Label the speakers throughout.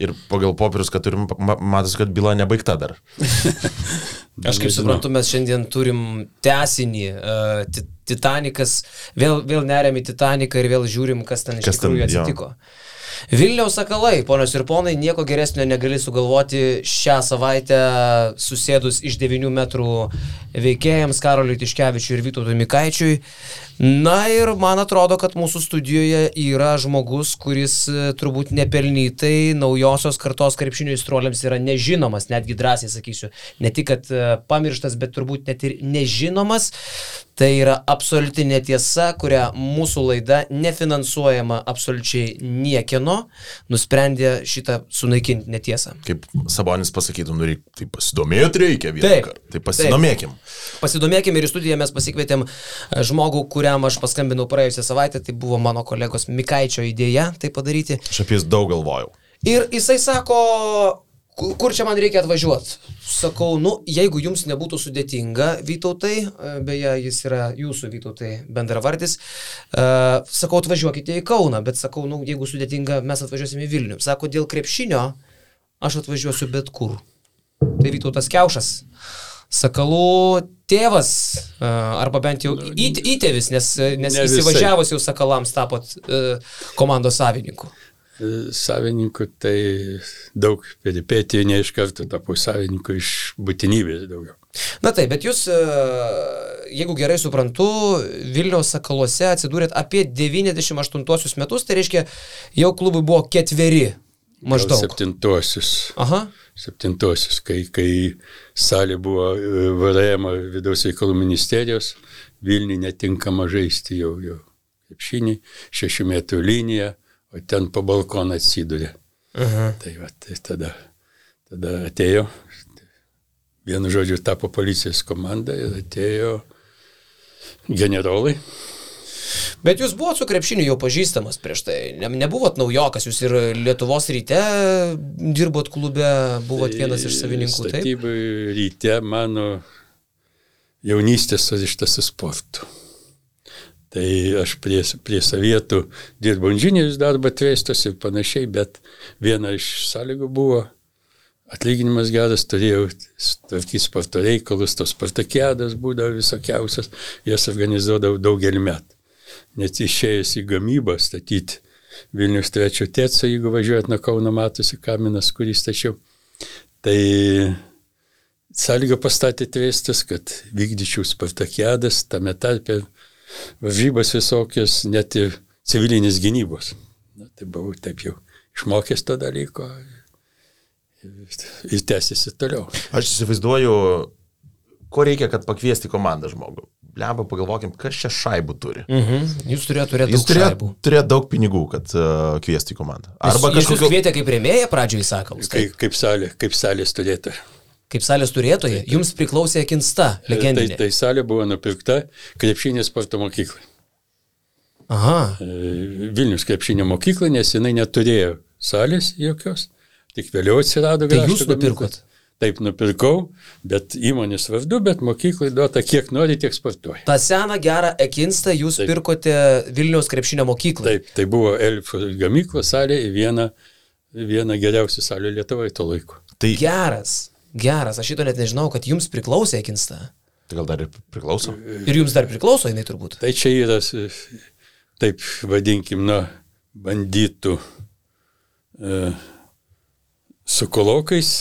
Speaker 1: Ir pagal popierius, kad turim, matosi, kad byla nebaigta dar.
Speaker 2: Aš kaip suprantu, mes šiandien turim tęsinį. Titanikas, vėl neriam į Titaniką ir vėl žiūrim, kas ten iš tikrųjų atsitiko. Vilniaus Sakalai, ponios ir ponai, nieko geresnio negali sugalvoti šią savaitę susėdus iš 9 metrų veikėjams Karoliui Tiškevičiui ir Vytautui Mikaičiui. Na ir man atrodo, kad mūsų studijoje yra žmogus, kuris turbūt nepelnytai naujosios kartos krepšinio aistruoliams yra nežinomas, netgi drąsiai sakysiu, ne tik, kad pamirštas, bet turbūt net ir nežinomas. Tai yra absoliuti netiesa, kurią mūsų laida, nefinansuojama absoliučiai niekieno, nusprendė šitą sunaikinti netiesą.
Speaker 1: Kaip Sabonis pasakytų, tai pasidomėti reikia vieną kartą. Tai pasidomėkim.
Speaker 2: Pasidomėkim ir į studiją mes pasikvietėm žmogų, kuriam aš paskambinau praėjusią savaitę, tai buvo mano kolegos Mikaičio idėja tai padaryti.
Speaker 1: Aš apie jis daug galvojau.
Speaker 2: Ir jisai sako, kur čia man reikia atvažiuoti? Sakau, jeigu jums nebūtų sudėtinga, Vytautai, beje, jis yra jūsų Vytautai bendravardis, sakau, atvažiuokite į Kauną, bet sakau, jeigu sudėtinga, mes atvažiuosime į Vilnių. Sako, dėl krepšinio aš atvažiuosiu bet kur. Tai Vytautas Kiaušas, Sakalų tėvas, arba bent jau įtėvis, nes įsivažiavus jau Sakalams tapot komandos savininku.
Speaker 3: Savininku tai daug peripetijų, ne iš karto tapau savininku, iš būtinybės daugiau.
Speaker 2: Na taip, bet jūs, jeigu gerai suprantu, Vilniaus Sakaluose atsidūrėt apie 98 metus, tai reiškia, jau klubui buvo 4 maždaug.
Speaker 3: 7.
Speaker 2: Aha.
Speaker 3: 7, kai salė buvo VRM vidaus reikalų ministerijos, Vilniui netinkama žaisti jau krepšinį, 6 metrų liniją, o ten po balkoną atsidūrė. Tai tada atėjo, vienu žodžiu, tapo policijos komanda ir atėjo generolai.
Speaker 2: Bet jūs buvot su krepšiniu jau pažįstamas prieš tai, nebuvot naujokas, jūs ir Lietuvos Ryte dirbot klube, buvot vienas iš savininkų, taip?
Speaker 3: Statybų Ryte mano jaunystės surištas su sportu. Tai aš prie Sovietų dirbau inžinierius darbą Tvestos ir panašiai, bet viena iš sąlygų buvo atlyginimas geras, turėjau tvarkyti sporto reikalus, tos spartakiadas būdavo visokiausias, jas organizuodavau daugelį metų. Net išėjęs į gamybą statyti Vilnius 3 tėco, jeigu važiuojat nuo Kauno matosi kaminas, kurį stačiau, tai sąlygą pastatė Tvestas, kad vykdyčiau spartakiadas, tame tarpe varžybas visokios, net ir civilinės gynybos. Tai buvau taip jau išmokęs to dalyko ir tęsiasi toliau.
Speaker 1: Aš įsivaizduoju, ko reikia, kad pakviesti komandą žmogų. Lemba, pagalvokim, kas čia šaibų turi.
Speaker 2: Jūs turėjote daug šaibų.
Speaker 1: Turėjo daug pinigų, kad kviesti į komandą.
Speaker 2: Arba jūs kvietė kaip rėmėją pradžioje į Sakalus.
Speaker 3: Kaip salės turėtoja.
Speaker 2: Kaip salės turėtoja, jums priklausė Akinsta, legendinė.
Speaker 3: Tai salė buvo nupirkta krepšinio sporto mokyklai.
Speaker 2: Aha.
Speaker 3: Vilnius krepšinio mokykla, nes jinai neturėjo salės jokios, tik vėliau atsirado.
Speaker 2: Tai jūs nupirkot?
Speaker 3: Taip, nupirkau, bet įmonės vardu, bet mokyklai duota kiek nori, tiek sportuoja.
Speaker 2: Ta seną gerą Akinstą jūs pirkote Vilniaus krepšinio mokyklai?
Speaker 3: Taip, tai buvo Elfo gamyklos salė ir viena geriausių salių Lietuvoje to laiku.
Speaker 2: Tai Geras, aš šito net nežinau, kad jums priklausė Akinsta.
Speaker 1: Tai gal dar ir priklauso?
Speaker 2: Ir jums dar priklauso, jinai turbūt.
Speaker 3: Tai čia yra, taip vadinkim, bandytų su kolokais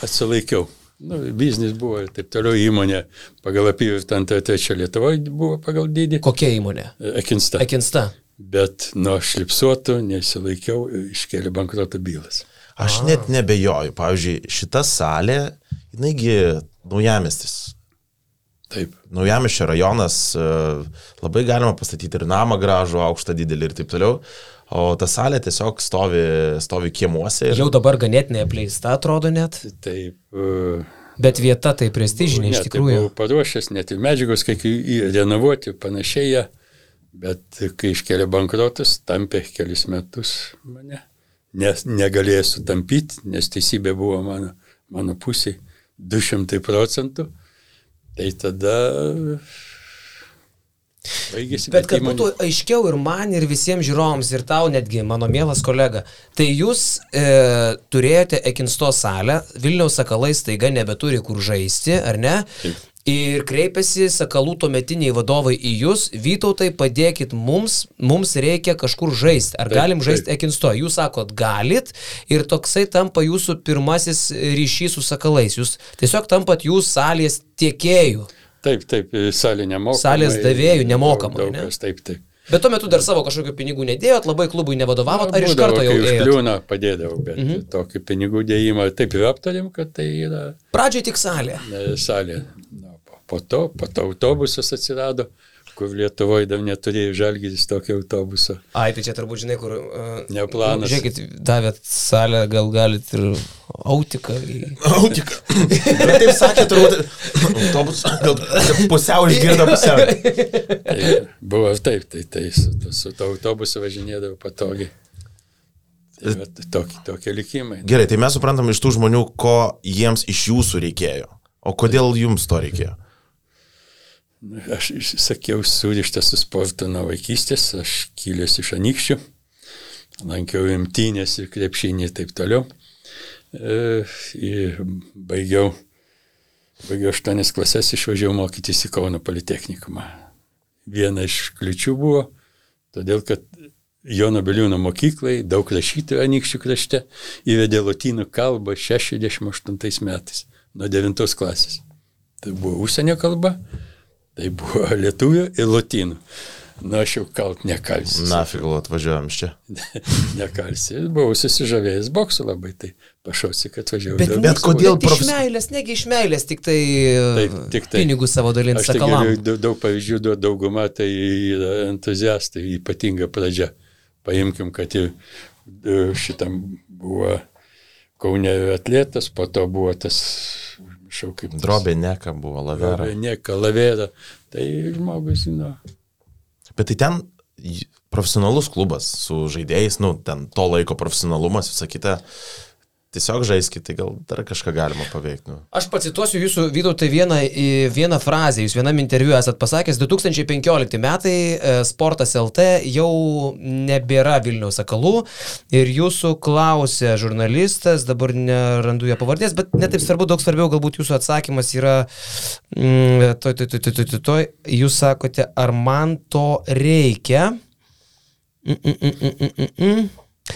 Speaker 3: atsilaikiau. Biznis buvo ir taip toliau, įmonė pagal apyvartą 3 Lietuvoje buvo pagal dydį.
Speaker 2: Kokia įmonė?
Speaker 3: Akinsta. Bet nuo šlipsuotų nesilaikiau, iškėlė bankroto bylas.
Speaker 1: Aš net nebejoju. Pavyzdžiui, šita salė, jinaigi Naujamiestis.
Speaker 3: Taip.
Speaker 1: Naujamiesčio rajonas, labai galima pastatyti ir namą gražų, aukštą, didelį ir taip toliau. O ta salė tiesiog stovi kiemuose.
Speaker 2: Jau dabar ganėtinai apleista, atrodo net.
Speaker 3: Taip.
Speaker 2: Bet vieta tai prestižinė iš tikrųjų.
Speaker 3: Tai buvau paruošęs, net ir medžiagos, kai renovuoti panašiai, bet kai iškėlė bankrotas, tampė kelis metus mane. Nes negalėjo sutampyti, nes teisybė buvo mano pusėje 200%. Tai tada
Speaker 2: Bet kad būtų aiškiau ir man, ir visiems žiūrovams, ir tau netgi, mano mielas kolega, tai jūs turėjote Ekinsto salę, Vilniaus Sakalai staiga nebeturi kur žaisti, ar ne?
Speaker 3: Taip.
Speaker 2: Ir kreipiasi Sakalų tuometiniai vadovai į jūs, Vytautai, padėkit mums reikia kažkur žaisti, ar galim žaisti Ekinsto? Jūs sakot, galit, ir toksai tampa jūsų pirmasis ryšys su Sakalais, jūs tiesiog tampat jūs salės tiekėjų.
Speaker 3: Taip, salė nemokamai.
Speaker 2: Salės davėjų nemokamai,
Speaker 3: ne? Taip.
Speaker 2: Bet tuo metu dar savo kažkokių pinigų nedėjot, labai klubui nevadovavot, ar iš karto jau ėjot?
Speaker 3: Užkliūna padėdavau, bet tokį pinigų dėjimą taip ir aptarėm, kad tai yra...
Speaker 2: Pradžioj tik salė.
Speaker 3: Salė. Po to autobusas atsirado, kur Lietuvoje dar neturėjo Žalgiris tokio autobuso.
Speaker 2: Ai, tai čia turbūt žinai, kur...
Speaker 3: Ne planas.
Speaker 2: Žiūrėkit, davėt salę, gal galit ir autiką.
Speaker 1: Autiką. Bet taip sakė, turbūt autobusą, gal pusiau išgirdo pusiau.
Speaker 3: Tai buvo taip, su to autobusu važinėdavo patogiai. Tai tokie likimai.
Speaker 1: Gerai, tai mes suprantam iš tų žmonių, ko jiems iš jūsų reikėjo. O kodėl jums to reikėjo?
Speaker 3: Aš sakiau, surištas su sportu nuo vaikystės, aš kilęs iš Anykščių, lankiau imtynės ir krepšinį ir taip toliau. Ir baigiau 8 klases, išvažiavau mokytis į Kauno politechnikumą. Viena iš kliučių buvo, todėl kad Jono Biliūno mokyklai, daug rašytojų Anykščių krašte, įvedė lotynų kalbą 68 metais, nuo 9 klasės. Tai buvo užsienio kalba, tai buvo lietuvių ir lotynų. Na, aš jau kalt nekalsiu.
Speaker 1: Nafig, atvažiuojam čia.
Speaker 3: Nekalsiu. Buvau susižavėjęs boksu labai, tai pašausi, kad atvažiavau.
Speaker 1: Bet kodėl
Speaker 2: iš meilės, negi iš meilės, tik tai pinigų savo dalint Sakalam.
Speaker 3: Aš tai daug pavyzdžių, dauguma tai yra entuziastai, ypatinga pradžia. Paimkim, kad ir šitam buvo Kaune atletas, po to buvo tas šaukimas.
Speaker 1: Drobė Neka buvo, Lavera.
Speaker 3: Drobė Neka, Lavera. Tai žmogus, žino.
Speaker 1: Bet tai ten profesionalus klubas su žaidėjais, ten to laiko profesionalumas, visą kitą. Tiesiog žaiskit, tai gal dar kažką galima paveikti.
Speaker 2: Aš pacituosiu jūsų, Vytautai, vieną frazę. Jūs vienam interviu esat pasakęs, 2015 metai Sportas LT jau nebėra Vilniaus Sakalų ir jūsų klausė žurnalistas, dabar nerandu jo pavardės, bet netaip svarbu, daug svarbiau galbūt jūsų atsakymas yra, jūs sakote, ar man to reikia?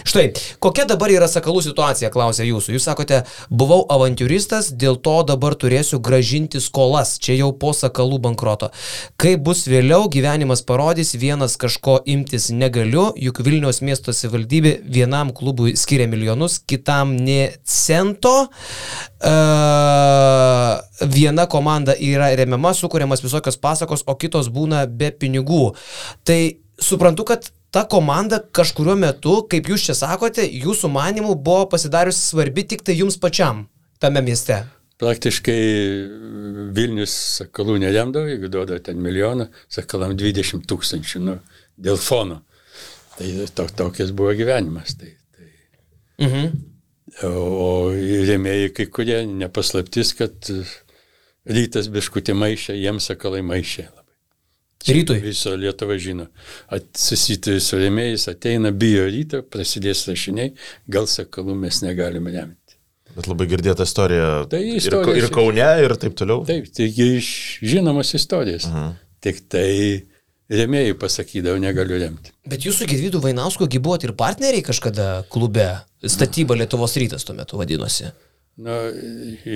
Speaker 2: Štai, kokia dabar yra Sakalų situacija, klausė jūsų. Jūs sakote, buvau avantiūristas, dėl to dabar turėsiu gražinti skolas, čia jau po Sakalų bankroto. Kai bus vėliau, gyvenimas parodys, vienas kažko imtis negaliu, juk Vilniaus miesto savivaldybė vienam klubui skiria milijonus, kitam nė cento. Viena komanda yra remiama, sukuriamas visokios pasakos, o kitos būna be pinigų. Tai suprantu, kad ta komanda kažkuriuo metu, kaip jūs čia sakote, jūsų manimų buvo pasidariusi svarbi tik tai jums pačiam tame mieste.
Speaker 3: Praktiškai Vilnius Sakalų neremdavo, jeigu duoda ten milijoną, Sakalam 20 000, dėl fono. Tai tokias buvo gyvenimas. O rėmėjai kai kurie nepaslaptis, kad Rytas biškutį maišė, jiems Sakalai maišė.
Speaker 2: Rytui.
Speaker 3: Viso Lietuva žino. Susituri su rėmėjais, ateina, bijo Ryto, prasidės rašiniai, gal Sakalų mes negalime remti.
Speaker 1: Bet labai girdėta istorija, ir Kaune, ir taip toliau.
Speaker 3: Taip, taigi iš žinomos istorijos. Tik tai rėmėjai pasakydavo, negaliu remti.
Speaker 2: Bet jūsų Gedvydu Vainausku buvot ir partneriai kažkada klube, Statyba Lietuvos Rytas tuo metu vadinosi.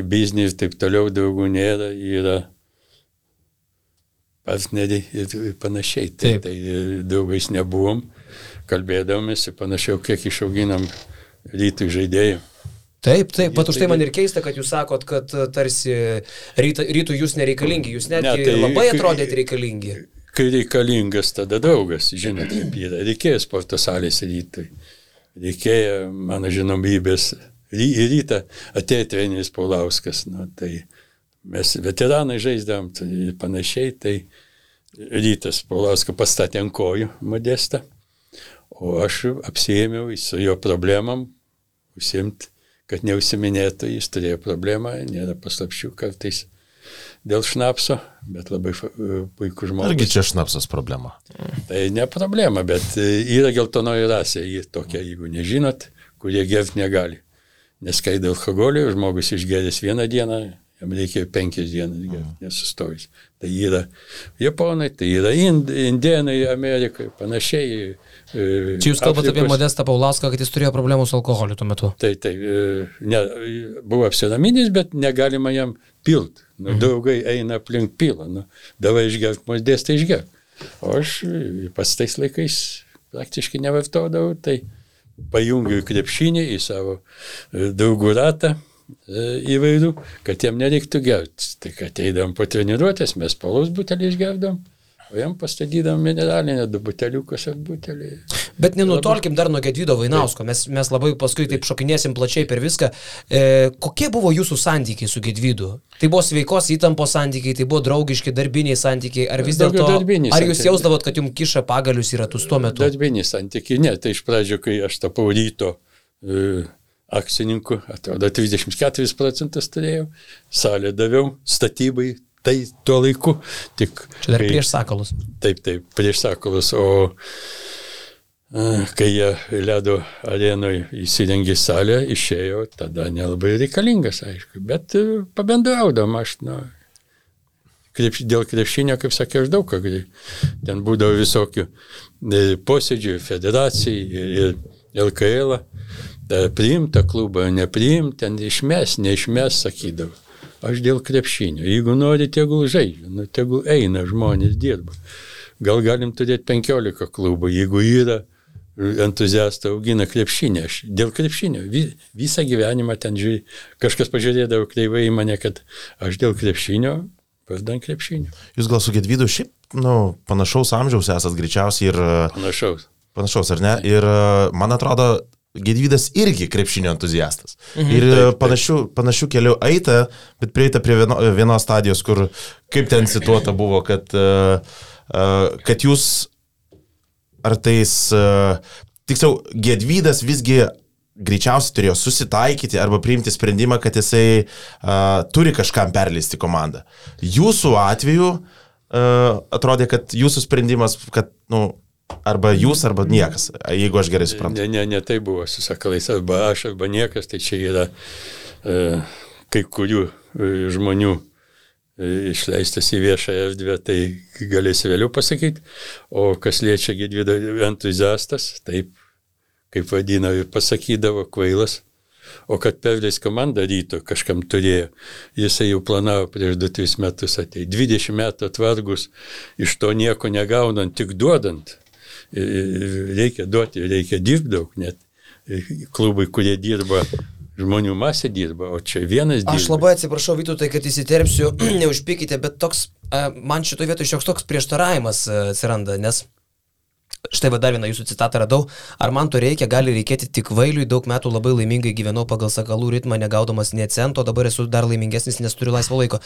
Speaker 3: Biznį ir taip toliau daugų nėra, yra partneriai ir panašiai. Tai draugais nebuvom, kalbėdavomės ir panašiau, kiek išauginam Rytui žaidėjų.
Speaker 2: Taip, pat už tai man ir keista, kad jūs sakot, kad tarsi Rytui jūs nereikalingi, jūs netgi labai atrodėt reikalingi.
Speaker 3: Kai reikalingas, tada draugas, žinot, kaip yra. Reikėjo sporto salės Rytui. Reikėjo mano žinomybės. Į Rytą atėjo treneris Paulauskas. Tai mes veteranai žaisdavom ir panašiai, tai Rytas Paulauską pastatė ant kojų Modestą, o aš apsiėmiau su jo problemam, užsiimti, kad neužsiminėtų, jis turėjo problemą, nėra paslapčių, kartais dėl šnapso, bet labai puikus žmogus.
Speaker 1: Argi čia šnapsas problema?
Speaker 3: Tai ne problema, bet yra geltonoji rasė, jį tokia, jeigu nežinot, kurie gerti negali. Neskaido alkoholio, žmogus išgeręs vieną dieną, jam reikia 5 dienas gerti, nesustojus. Tai yra Japonai, tai yra Indienai, Amerikai, panašiai.
Speaker 2: Čia jūs kalbate apie Modestą Paulauską, kad jis turėjo problemų su alkoholiu tuo metu.
Speaker 3: Tai, buvo apsiraminęs, bet negalima jam pilt. Draugai eina aplink pilą. Davai išgerk, Modestą išgerk. O aš pas tais laikais praktiškai nevartodavau, tai pajungiu krepšinį į savo draugų ratą įvairių, kad jam nereiktų gerti. Tai kad eidam po treniruotės, mes paulaus butelį išgerdam, o jam pastatydam mineralinę 2 buteliukus ar butelį.
Speaker 2: Bet nenutolkim dar nuo Gedvydo Vainausko, mes labai paskui taip šokinėsim plačiai per viską. Kokie buvo jūsų santykiai su Gedvydu? Tai buvo sveikos įtampos santykiai, tai buvo draugiški, darbiniai santykiai, ar vis dėlto, ar jūs jausdavot, kad jums kiša pagalius į ratus tuo metu?
Speaker 3: Darbiniai santykiai, ne, tai iš pradžio, kai aš tapau Ryto akcininku, atrodo 34% turėjau, salę daviau, statybai, tai tuo laiku. Tik,
Speaker 2: čia dar prieš Sakalus.
Speaker 3: Taip, prieš Sakalus, o kai jie ledo arenoje įsirengė salę, išėjo, tada nelabai reikalingas, aišku, bet pabendraudam aš, dėl krepšinio, kaip sakė, aš daug ką, ten būdavo visokių posėdžių, federacijai ir LKL, priimta klubą, nepriimta, ten išmes, neišmes, sakydavo. Aš dėl krepšinio. Jeigu nori, tegul žaidžia, tegul eina, žmonės dirba. Gal galim turėti 15 klubų, jeigu yra entuziastai augina krepšinį. Aš dėl krepšinio. Visą gyvenimą ten žiūrėjau. Kažkas pažiūrėdavo kreivai į mane, kad aš dėl krepšinio, vardan krepšinio.
Speaker 1: Jūs gal su Gedvydu šiaip, panašaus amžiaus esat greičiausiai ir... Panašaus, ar ne? Ir man atrodo, Gedvydas irgi krepšinio entuziastas. Ir panašių kelių eita, bet prieita prie vienos stadijos, kur kaip ten situota buvo, kad jūs ar tais, tiksliau, Gedvydas visgi greičiausiai turėjo susitaikyti arba priimti sprendimą, kad jisai turi kažkam perleisti komandą. Jūsų atveju atrodė, kad jūsų sprendimas, kad, arba jūs, arba niekas, jeigu aš gerai suprantu.
Speaker 3: Ne, tai buvo su Sakalais, arba aš, arba niekas, tai čia yra kai kurių žmonių išleistas į viešą erdvę, tai galėsi vėliau pasakyti, o kas liečia Gedvydo entuziastas, taip, kaip vadina, pasakydavo kvailas, o kad perleis komandą Ryto kažkam turėjo, jisai jau planavo prieš 2-3 metus atei. 20 metų atvargus, iš to nieko negaunant, tik duodant. Reikia duoti, reikia dirbti daug, net klubai, kurie dirba, žmonių masė dirba, o čia vienas dirba.
Speaker 2: Aš labai atsiprašau, Vytautai, kad įsiterpsiu, neužpykite, bet toks, man šitoje vietoje šioks toks prieštaravimas atsiranda, nes štai dar vieną jūsų citatą radau. Ar man to reikia, gali reikėti tik kvailiui, daug metų labai laimingai gyvenau pagal Sakalų ritmą, negaudamas nė cento, dabar esu dar laimingesnis, nes turiu laisvo laiko.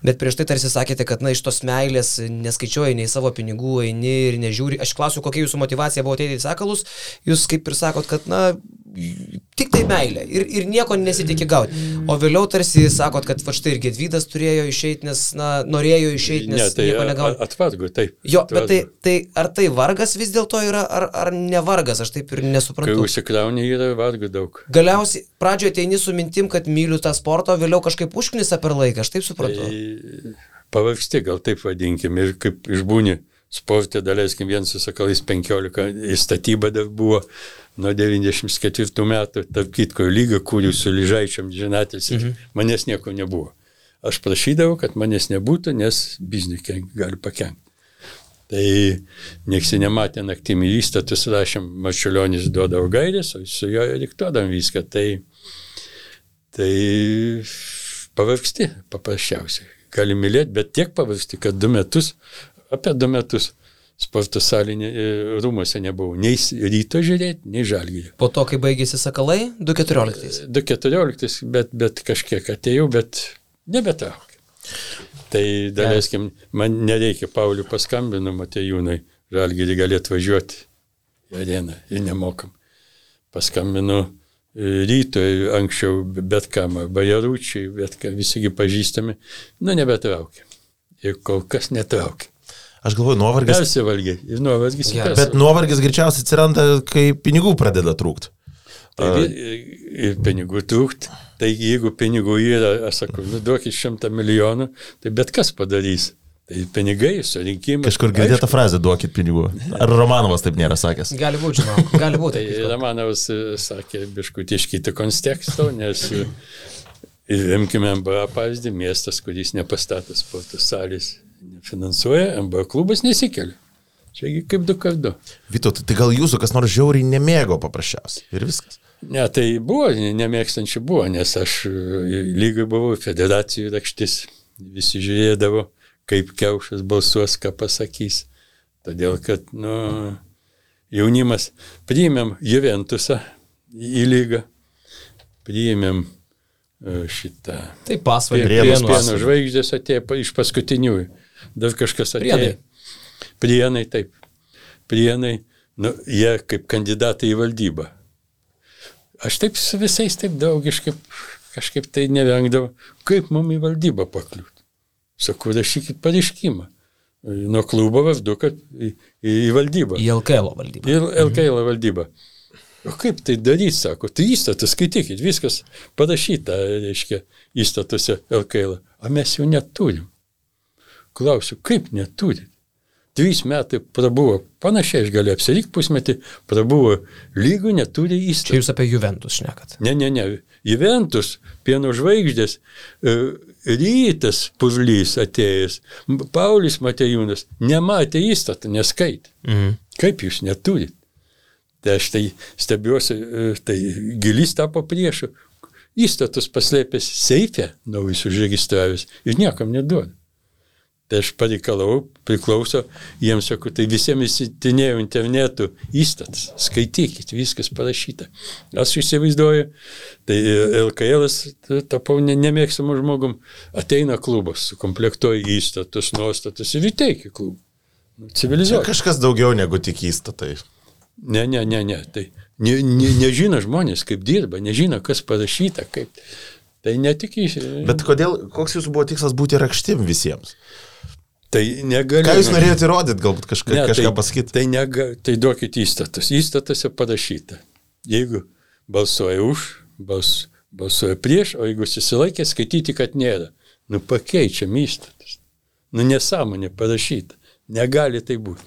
Speaker 2: Bet prieš tai tarsi sakėte, kad iš tos meilės neskaičiuoji nei savo pinigų, eini ir nežiūri. Aš klausiu, kokia jūsų motyvacija buvo ateiti į Sakalus, jūs kaip ir sakot, kad tik tai meilė ir nieko nesitikė gauti. O vėliau tarsi sakot, kad va štai ir Gedvydas turėjo išeiti, nes norėjo išeiti, nes nieko negauti.
Speaker 3: Atvargu, taip.
Speaker 2: Jo, bet tai ar tai vargas vis dėlto yra, ar ne vargas, aš taip ir nesuprantu.
Speaker 3: Kai užsikrauni, yra vargų daug.
Speaker 2: Galiausiai pradžioje ateini su mintim, kad myliu tą sportą, vėliau kažkaip užknisa per laiką, aš taip suprantu.
Speaker 3: Tai pavargsti, gal taip vadinkim, ir kaip išbūni sportė, daleiskim, vien su Sakalais 15, į statybą dar buvo nuo 94 metų, tarp kitko lygą, kurių su Lyžaičiam žinatės, manęs nieko nebuvo. Aš prašydavau, kad manęs nebūtų, nes bizniui gali pakenkti. Tai nieks nematė naktimi įstatus, rašėm, Marčiulionis duodavo gairės, o su jo diktuodam viską. Tai pavargsti paprasčiausiai. Gali mylėti, bet tiek pavargsti, kad apie 2 metus sporto salinė rūmose nebuvau. Nei Ryto žiūrėti, nei Žalgirį.
Speaker 2: Po to, kai baigėsi Sakalai, 2014.
Speaker 3: 2014, bet kažkiek atėjau, bet nebetraukė. Tai daleiskim, man nereikia, Paulių paskambinu, Matejūnai, Žalgirį gali atvažiuoti į areną ir nemokam. Paskambinu Rytoj anksčiau bet kam, Bajaručiai, bet kam, visigi pažįstami, nebetraukia. Ir kol kas netraukia.
Speaker 1: Aš galvoju, nuovargis.
Speaker 3: Persivalgė ir nuovargis.
Speaker 1: Bet nuovargis greičiausiai atsiranda, kai pinigų pradeda trūkti.
Speaker 3: Ir pinigų trūkti. Tai jeigu pinigų yra, aš sakau, duokit 100 milijonų, tai bet kas padarys. Tai pinigai, surinkimas.
Speaker 1: Kažkur girdėta frazė, duokit pinigų. Ar Romanovas taip nėra sakęs?
Speaker 2: Gali būti, žinau. Gali būti.
Speaker 3: Tai Romanovas sakė, biškutį iš kito konteksto, nes imkime MBA pavyzdį, miestas, kuris nepastato sporto salės, nefinansuoja, MBA klubas nesikelia. Čiagi kaip 2x2.
Speaker 1: Vytautai, tai gal jūsų kas nors žiauriai nemėgo paprasčiausiai ir viskas?
Speaker 3: Ne, tai buvo, nemėgstančių buvo, nes aš lygai buvau federacijų rakštis, visi žiūrėdavo, kaip Kiaušas balsuos, ką pasakys. Todėl, kad, jaunimas priėmėm Juventusą į lygą, priėmėm šitą.
Speaker 2: Tai pasvalį.
Speaker 3: Pieno žvaigždės atėjo iš paskutiniųjų. Dar kažkas atėjo. Prienai, taip. Prienai, jie kaip kandidatai į valdybą. Aš taip su visais taip draugiškai kažkaip tai nevengdavau, kaip mums į valdybą pakliūti. Sakau, rašykit pareiškimą. Nuo klubo vardu, kad į valdybą.
Speaker 2: Į LKL valdybą.
Speaker 3: Į LKL valdybą. O kaip tai daryti, sako, tai įstatus skaitykit, viskas parašyta, reiškia, įstatuose LKL. O mes jau neturim. Klausiu, kaip neturit? 3 metai prabuvo, panašiai aš galiu apsirikti pusmetį, prabuvo lygų, neturi įstatų.
Speaker 2: Čia jūs apie Juventus šnekat.
Speaker 3: Ne. Juventus, Pieno žvaigždės, Rytas Puzlys atėjęs, Paulius Matejūnas nematė įstatą, neskaitė. Kaip jūs neturit? Tai aš tai stebiuosi, tai Gilys tapo priešu, įstatus paslėpęs seife, naujus užregistravęs ir niekam neduoda. Tai aš pareikalau, priklauso, jiems sakau, tai visiems įsitinėjau internetu įstatas, skaitykit, viskas parašyta. Aš įsivaizduoju, tai LKL'as tapau nemėgstamų žmogum, ateina klubas, sukomplektuoja įstatus, nuostatus ir įteikia klubą. Civilizuoja.
Speaker 1: Kažkas daugiau negu tik įstatai.
Speaker 3: Ne, tai nežino žmonės, kaip dirba, nežino, kas parašyta, kaip. Tai netik
Speaker 1: Bet koks jūsų buvo tikslas būti rakštim visiems?
Speaker 3: Tai negaliu.
Speaker 1: Ką jūs norėjote įrodyti, galbūt kažką pasakyti?
Speaker 3: Tai duokit įstatus. Įstatuose parašyta. Jeigu balsuoja už, balsuoja prieš, o jeigu susilaikė, skaityti, kad nėra. Pakeičiam įstatus. Nesąmonė parašyta. Negali tai būti.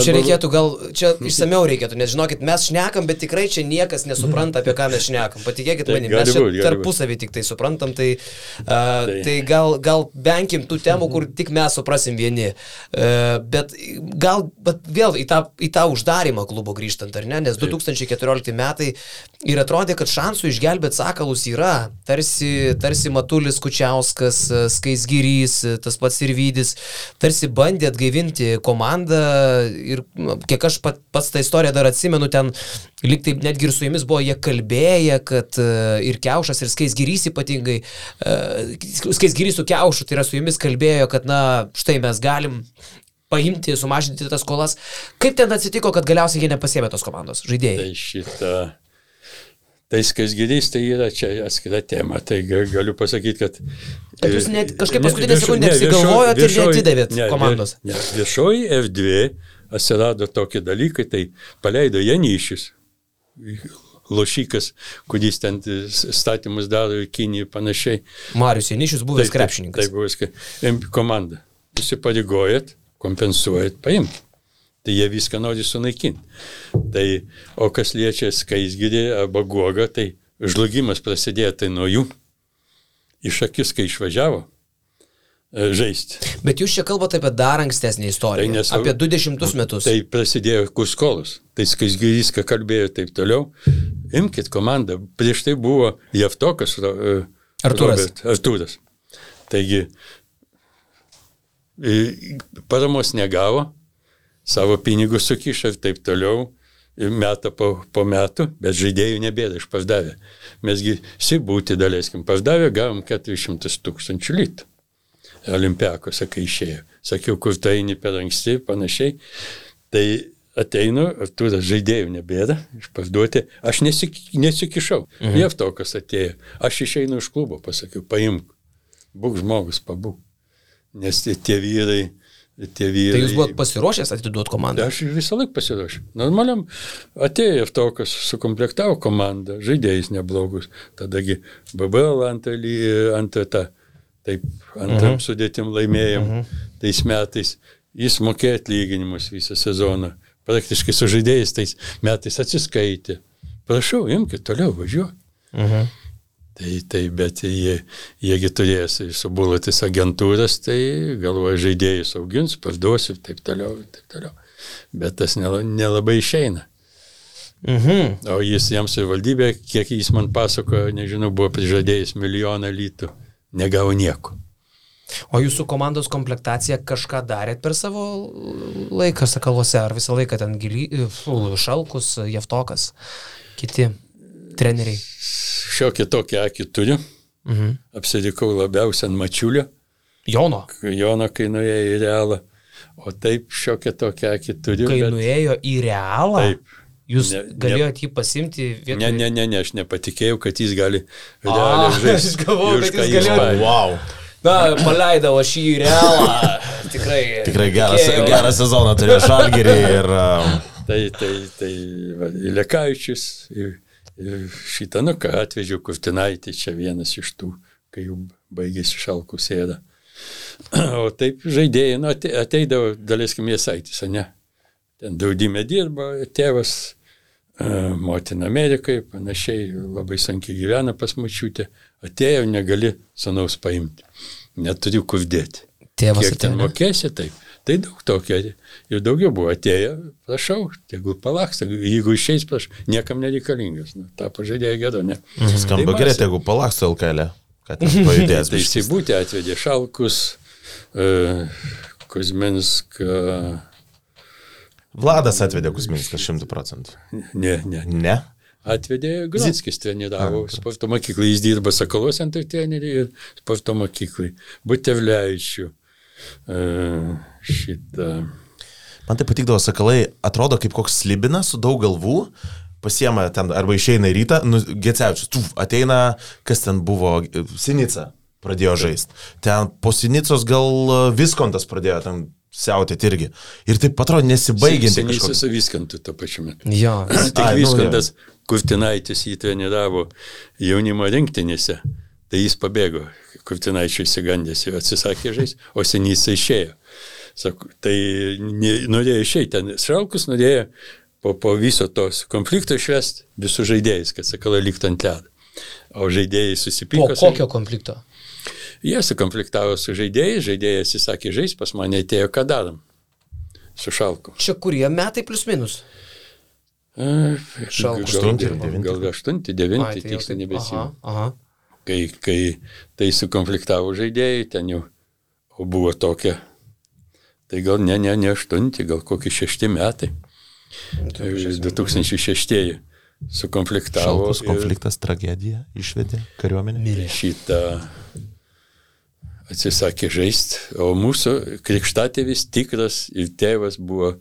Speaker 2: Čia reikėtų čia išsameu reikėtų, nes žinokit, mes šnekam, bet tikrai čia niekas nesupranta, apie ką mes šnekam. Patikėkit manim, mes čia tarpusavį tik tai suprantam, tai gal venkim tų temų, kur tik mes suprasim vieni. Bet vėl į tą uždarimą klubo grįžtant, ar ne? Nes 2014 metai ir atrodė, kad šansų išgelbėti sakalus yra. Tarsi Matulis Kučiauskas, Skaisgirys, tas pats Sirvydis, tarsi bandė atgaivinti komandą ir kiek aš pats tą istoriją dar atsimenu, ten lyg taip netgi ir su jumis buvo jie kalbėję, kad ir Kiaušas, ir Skaisgirys ypatingai, Skaisgirys su Kiaušu, tai yra su jumis kalbėjo, kad štai mes galim paimti, sumažinti tas skolas. Kaip ten atsitiko, kad galiausiai jie nepasiėmė tos komandos žaidėjai?
Speaker 3: Tai Skaisgirys tai yra čia atskira tema, tai galiu pasakyti, kad...
Speaker 2: Bet jūs kažkaip paskutinę sekundę apsigalvojot ir neatidavėt komandos.
Speaker 3: Viešoji erdvė atsirado tokie dalykai, tai paleido Janyšius, lošikas, kuris ten statymus daro į Kiniją ir panašiai.
Speaker 2: Marius Janyšius buvęs krepšininkas.
Speaker 3: Tai buvęs komanda. Įsipareigojat, kompensuojat, paimkit. Tai jie viską nori sunaikinti. O kas liečia Skaisgirį arba Guogą, tai žlugimas prasidėjo tai nuo jų. Iš akis, kai išvažiavo žaisti.
Speaker 2: Bet jūs čia kalbate apie dar ankstesnį istoriją, apie 20 metus.
Speaker 3: Tai prasidėjo Kuskolos. Tai Skaisgirys, ką kalbėjo taip toliau. Imkit komandą. Prieš tai buvo Javtokas Artūras. Taigi, paramos negavo, savo pinigus sukišo ir taip toliau, metą po metų, bet žaidėjų nebėra išpardavę. Mesgi Sibūtį daleiskim pardavę, gavom 400 000 litų. Olimpiakose, kai išėjo. Sakiau, kur tai eini per anksti, panašiai. Tai ateinu, Artūras žaidėjų nebėra, išparduoti, aš nesikišau. Jevtokas atėjo, aš išeinu iš klubo, pasakiau, paimk, būk žmogus, pabūk. Nes tie vyrai... Tai
Speaker 2: jūs buvot pasiruošęs atiduoti komandą?
Speaker 3: Aš visą laiką pasiruošęs. Normaliam atėjo Jevtokas, sukomplektavo komandą, žaidėjais neblogus. Tadagi BBL antram sudėtim laimėjom tais metais. Jis mokėjo atlyginimus visą sezoną. Praktiškai su žaidėjais tais metais atsiskaitė. Prašau, imkite toliau, važiuok. Tai, bet jiegi turės subulutis agentūras, tai galvoja žaidėjus augins, parduosiu ir taip toliau. Bet tas nelabai išeina. O jiems ir valdybė, kiek jis man pasakojo, nežinau, buvo prižadėjęs 1 milijoną litų, negavo nieko.
Speaker 2: O jūsų komandos komplektaciją kažką darėt per savo laiką Sakaluose, ar visą laiką ten Šalkus, Jevtokas, kiti treneriai?
Speaker 3: Šiokį tokį akį turiu. Apsidikau labiausiai ant Mačiulio.
Speaker 2: Jono,
Speaker 3: kai nuėjo į Realą. O taip šiokį tokį akį turiu.
Speaker 2: Kai nuėjo į Realą? Taip. Jūs galėjote jį pasimti vietoj?
Speaker 3: Ne, aš nepatikėjau, kad jis gali Realą žaisti.
Speaker 2: Aš galvoju, kad jis galėjo.
Speaker 1: Wow.
Speaker 2: Na, paleidau aš į Realą. Tikrai
Speaker 1: gerą sezoną turėjo Žalgirį ir...
Speaker 3: Tai Lekavičius ir šitą, ką atvežiau Kurtinaitį, čia vienas iš tų, kai jau baigėsi Šalkų sėda. O taip žaidėjai, ateidavo Daleiskim Jasaitis, ne? Ten Draudime dirba, tėvas, motina Amerikai, panašiai, labai sunkiai gyvena pas močiutę. Atėjo, negali sūnaus paimti. Neturiu kur dėti.
Speaker 2: Tėvas
Speaker 3: kiek ten mokėsi, taip. Tai daug tokio. Ir daugiau buvo atėję, prašau, tegul palaks, jeigu išeis, prašau, niekam nereikalingas. Ta pažaidėjo gėdo, ne.
Speaker 1: Skamba gerai, tegul palaks LKL, kad pajudės.
Speaker 3: Tai įsibūtį atvedė Šalkus, Kuzminską.
Speaker 1: Vladas atvedė Kuzminską 100%.
Speaker 3: Ne? Atvedė Gronskis, treniravo sporto mokyklai, jis dirba Sakaluose ant trenerių ir sporto mokyklai. Butevlevičių.
Speaker 1: Man tai patikdavo Sakalai, atrodo kaip koks slibinas su daug galvų, pasiema ten arba išeina į rytą, Gecevičius, ateina, kas ten buvo, Sinica pradėjo žaisti. Ten po Sinicos gal Viskontas pradėjo ten siautėti irgi. Ir taip atrodo nesibaigianti kažkokia.
Speaker 3: Sinica su Viskontu to pačiu metu.
Speaker 2: Jo.
Speaker 3: Tik Viskontas, Kurtinaitis jį treniravo jaunimo rinktinėse. Tai jis pabėgo, Kurtinaičiui įsigandęs ir atsisakė žaisti, o Sinica išėjo. Sako, tai norėjo išeiti ten. Šalkus norėjo po viso tos konflikto išvesti visų žaidėjais, kad Sakalai liktų ant ledo. O žaidėjai susipyko.
Speaker 2: Po kokio konflikto?
Speaker 3: Jie sukonfliktavo su žaidėjais, žaidėjai atsisakė žaisti, pas mane atėjo, ką darom su Šalku.
Speaker 2: Čia kurie metai plius minus?
Speaker 3: Šalkus. Gal 8-9, tiksliai nebesimenu.
Speaker 2: Aha.
Speaker 3: Kai tai sukonfliktavo žaidėjai, ten jau buvo tokia, tai gal ne 8, gal kokie 6 metai. 2006 sukonfliktavo.
Speaker 1: Šalkus konfliktas, tragedija, išvedė kariuomenę.
Speaker 3: Šitą atsisakė žaisti, o mūsų krikštatėvis tikras ir tėvas buvo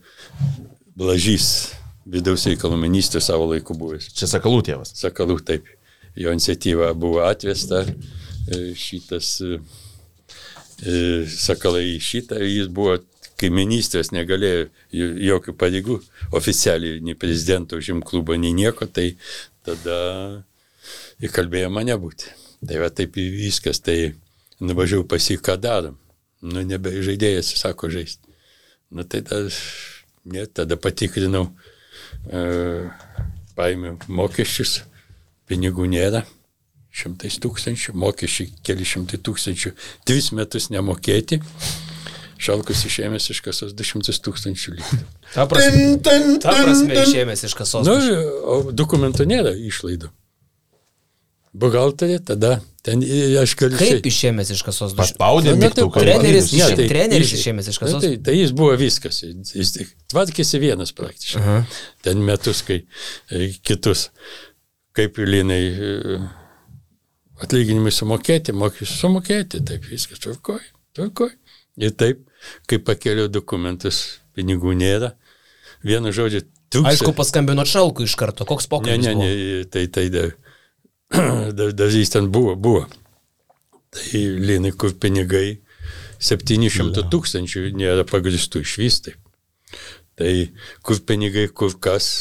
Speaker 3: Blažys, vidaus reikalų ministras savo laiku buvęs.
Speaker 1: Čia Sakalų tėvas.
Speaker 3: Sakalų, taip. Jo iniciatyva buvo atvesta, šitas Sakalai šitą, jis buvo, kai ministras negalėjo jokių pareigų, oficialiai, nei prezidento užim klubo, nei nieko, tai tada įkalbėjo mane būti. Tai va taip viskas, tai nuvažiavau pas jį, ką darom. Nebe žaidėjas, sako, žaisti. Tai tada patikrinau, paėmiau mokesčius. Pinigų nėra, 100 000, mokesčiai keli 100 000, 3 metus nemokėti, Šalkus išėmės iš kasos 200 000 litų.
Speaker 2: Ta prasme išėmės iš kasos.
Speaker 3: O dokumentų nėra išlaidų. Buhalterė, tada ten aš galiu...
Speaker 2: Kaip išėmės iš kasos?
Speaker 1: Paspaudė mygtuką.
Speaker 2: Treneris išėmės iš kasos?
Speaker 3: Tai jis buvo viskas, jis tvarkėsi vienas praktiškai. Ten metus, kai kitus... Kaip Linai atlyginimai sumokėti, mokesčius sumokėti, taip viskas tvarkoj. Ir taip, kai pakėliau dokumentus, pinigų nėra, vienu žodžiu,
Speaker 2: Aišku, paskambino Šalkui iš karto, koks pokalbis buvo?
Speaker 3: Dar jis ten buvo. Tai Linai, kur pinigai 700 000 nėra pagristų išvis taip. Tai kur pinigai, kur kas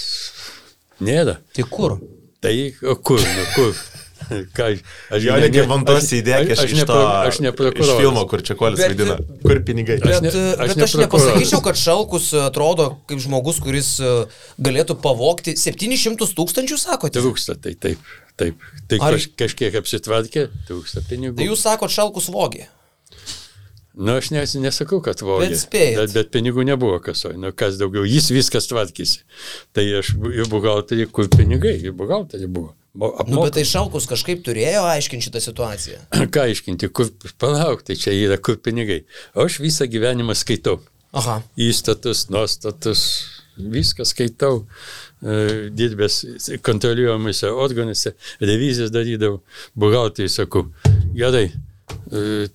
Speaker 3: nėra.
Speaker 2: Tai kur?
Speaker 3: Tai kur?
Speaker 1: Jo reikia vantos įdėk iš filmo, kur Čekuolis vaidina. Kur pinigai?
Speaker 2: Bet aš nepasakyčiau, kad Šalkus atrodo kaip žmogus, kuris galėtų pavogti 700 000, sakote?
Speaker 3: Trūksta, tai taip. Tai kažkiek apsitvarkė, trūksta pinigų.
Speaker 2: Tai jūs sakot, Šalkus vogė?
Speaker 3: Aš nesakau, kad vogė. Bet pinigų nebuvo kasoj. Kas daugiau, jis viskas tvarkėsi. Tai aš į buhalterį, kur pinigai, į buhalterį buvo.
Speaker 2: Bet tai Šalkus kažkaip turėjo aiškinti šitą situaciją.
Speaker 3: Ką aiškinti, palauk, tai čia yra kur pinigai. O aš visą gyvenimą skaitau.
Speaker 2: Aha.
Speaker 3: Įstatus, nuostatus, viską skaitau. Dirbęs kontroliuojamuose organuose, revizijas darydavau. Buhalteriui sakau, gerai,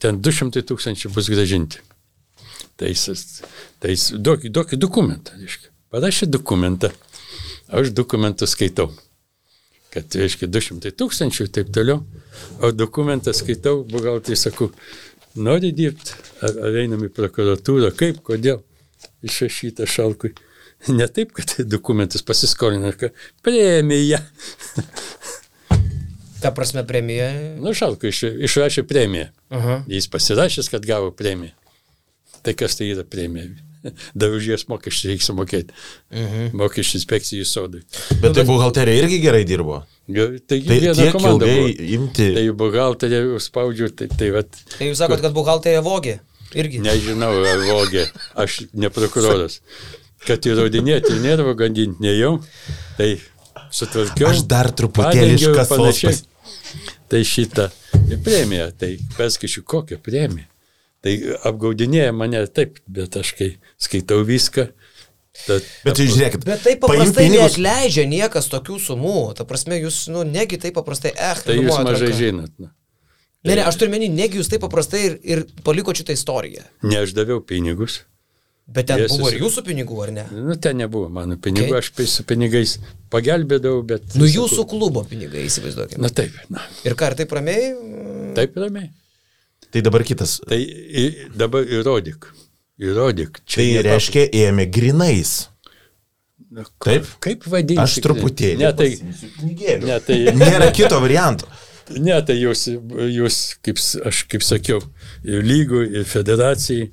Speaker 3: ten 200 000 bus gražinti. Tai duokit dokumentą. Parašė dokumentą. Aš dokumentą skaitau. Kad, reiškia, 200 000 ir taip toliau, o dokumentą skaitau, buhalteriui sakau, nori dirbti, ar einam į prokuratūrą, kaip, kodėl, išrašyta Šalkui. Ne taip, kad dokumentus pasiskolina, kad premija.
Speaker 2: Ta prasme premija?
Speaker 3: Šalkui išrašė premiją. Jis pasirašęs, kad gavo premiją. Tai kas tai yra premija? Dar už jas mokesčių reikia sumokėti. Mokesčių inspekcijų sodai.
Speaker 1: Bet tai buhalterija irgi gerai dirbo.
Speaker 3: Tai viena komanda buvo.
Speaker 1: Imti.
Speaker 3: Tai buhalterija spaudžiu, tai vat.
Speaker 2: Tai jūs sakot, kad buhalterija vogė? Irgi?
Speaker 3: Nežinau, ar vogė. Aš ne prokuroras. Kad įrodinėti nervą gandinti nejau, tai sutvarkiau.
Speaker 1: Aš dar truputėlį iš kasos.
Speaker 3: Tai šitą premiją, tai perskaičiu kokią premiją. Tai apgaudinėja mane taip, bet aš kai skaitau viską.
Speaker 1: Bet žiūrėkit,
Speaker 2: bet taip paprastai neatleidžia niekas tokių sumų. Ta prasme, jūs, negi taip paprastai,
Speaker 3: Tai jūs mažai žinot.
Speaker 2: Ne, aš turiu menį, negi jūs taip paprastai ir paliko šitą istoriją.
Speaker 3: Ne, aš daviau pinigus.
Speaker 2: Bet ten buvo ir jūsų pinigų, ar ne?
Speaker 3: Ten nebuvo mano pinigų, aš su pinigais pagelbėdavau, bet...
Speaker 2: Jūsų klubo pinigai, įsivaizduokime.
Speaker 3: Taip.
Speaker 2: Ir ką, ar taip ramiai?
Speaker 3: Taip ramiai.
Speaker 1: Tai dabar kitas.
Speaker 3: Tai dabar įrodyk.
Speaker 1: Tai reiškia, ėmė grinais. Taip?
Speaker 3: Kaip vadinti?
Speaker 1: Aš truputėlį.
Speaker 3: Ne, tai
Speaker 1: nėra kito varianto.
Speaker 3: Ne, tai jūs kaip sakiau, ir lygų, ir federacijai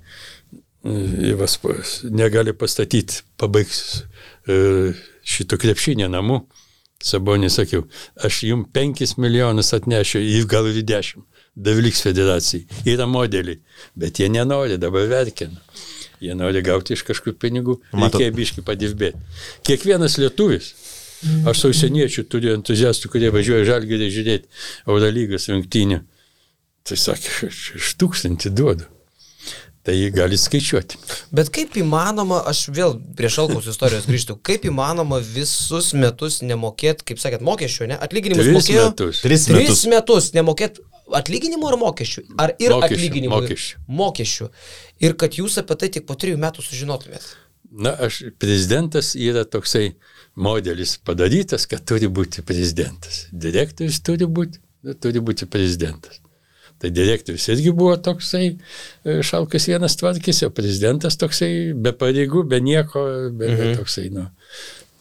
Speaker 3: negali pastatyti, pabaigs šito krepšinio namų. Sabonį sakiau, aš jums 5 milijonus atnešiu, ir gal ir 10. Davliks federacijai. Yra modeliai, bet jie nenori, dabar verkina. Jie nori gauti iš kažkur pinigų, reikia biškį padirbėti. Kiekvienas lietuvis, aš su užsieniečių turiu entuziastų, kurie važiuoja Žalgirį žiūrėti Eurolygos rungtynių. Tai sakė, aš 1000 duodu. Tai gali skaičiuoti.
Speaker 2: Bet kaip įmanoma, aš vėl prie Šalkaus istorijos grįžtu, kaip įmanoma visus metus nemokėti, kaip sakėt, mokesčių, ne? Atlyginimus mokėjo? 3 metus nemokėti atlyginimų ar mokesčių? Ar ir atlyginimų? Mokesčių. Ir kad jūs apie tai tik po 3 metų sužinotumėt.
Speaker 3: Prezidentas yra toksai modelis padarytas, kad turi būti prezidentas. Direktorius turi būti prezidentas. Tai direktorius irgi buvo toksai, Šalkas vienas tvarkėsi, o prezidentas toksai be pareigų, be nieko, toksai,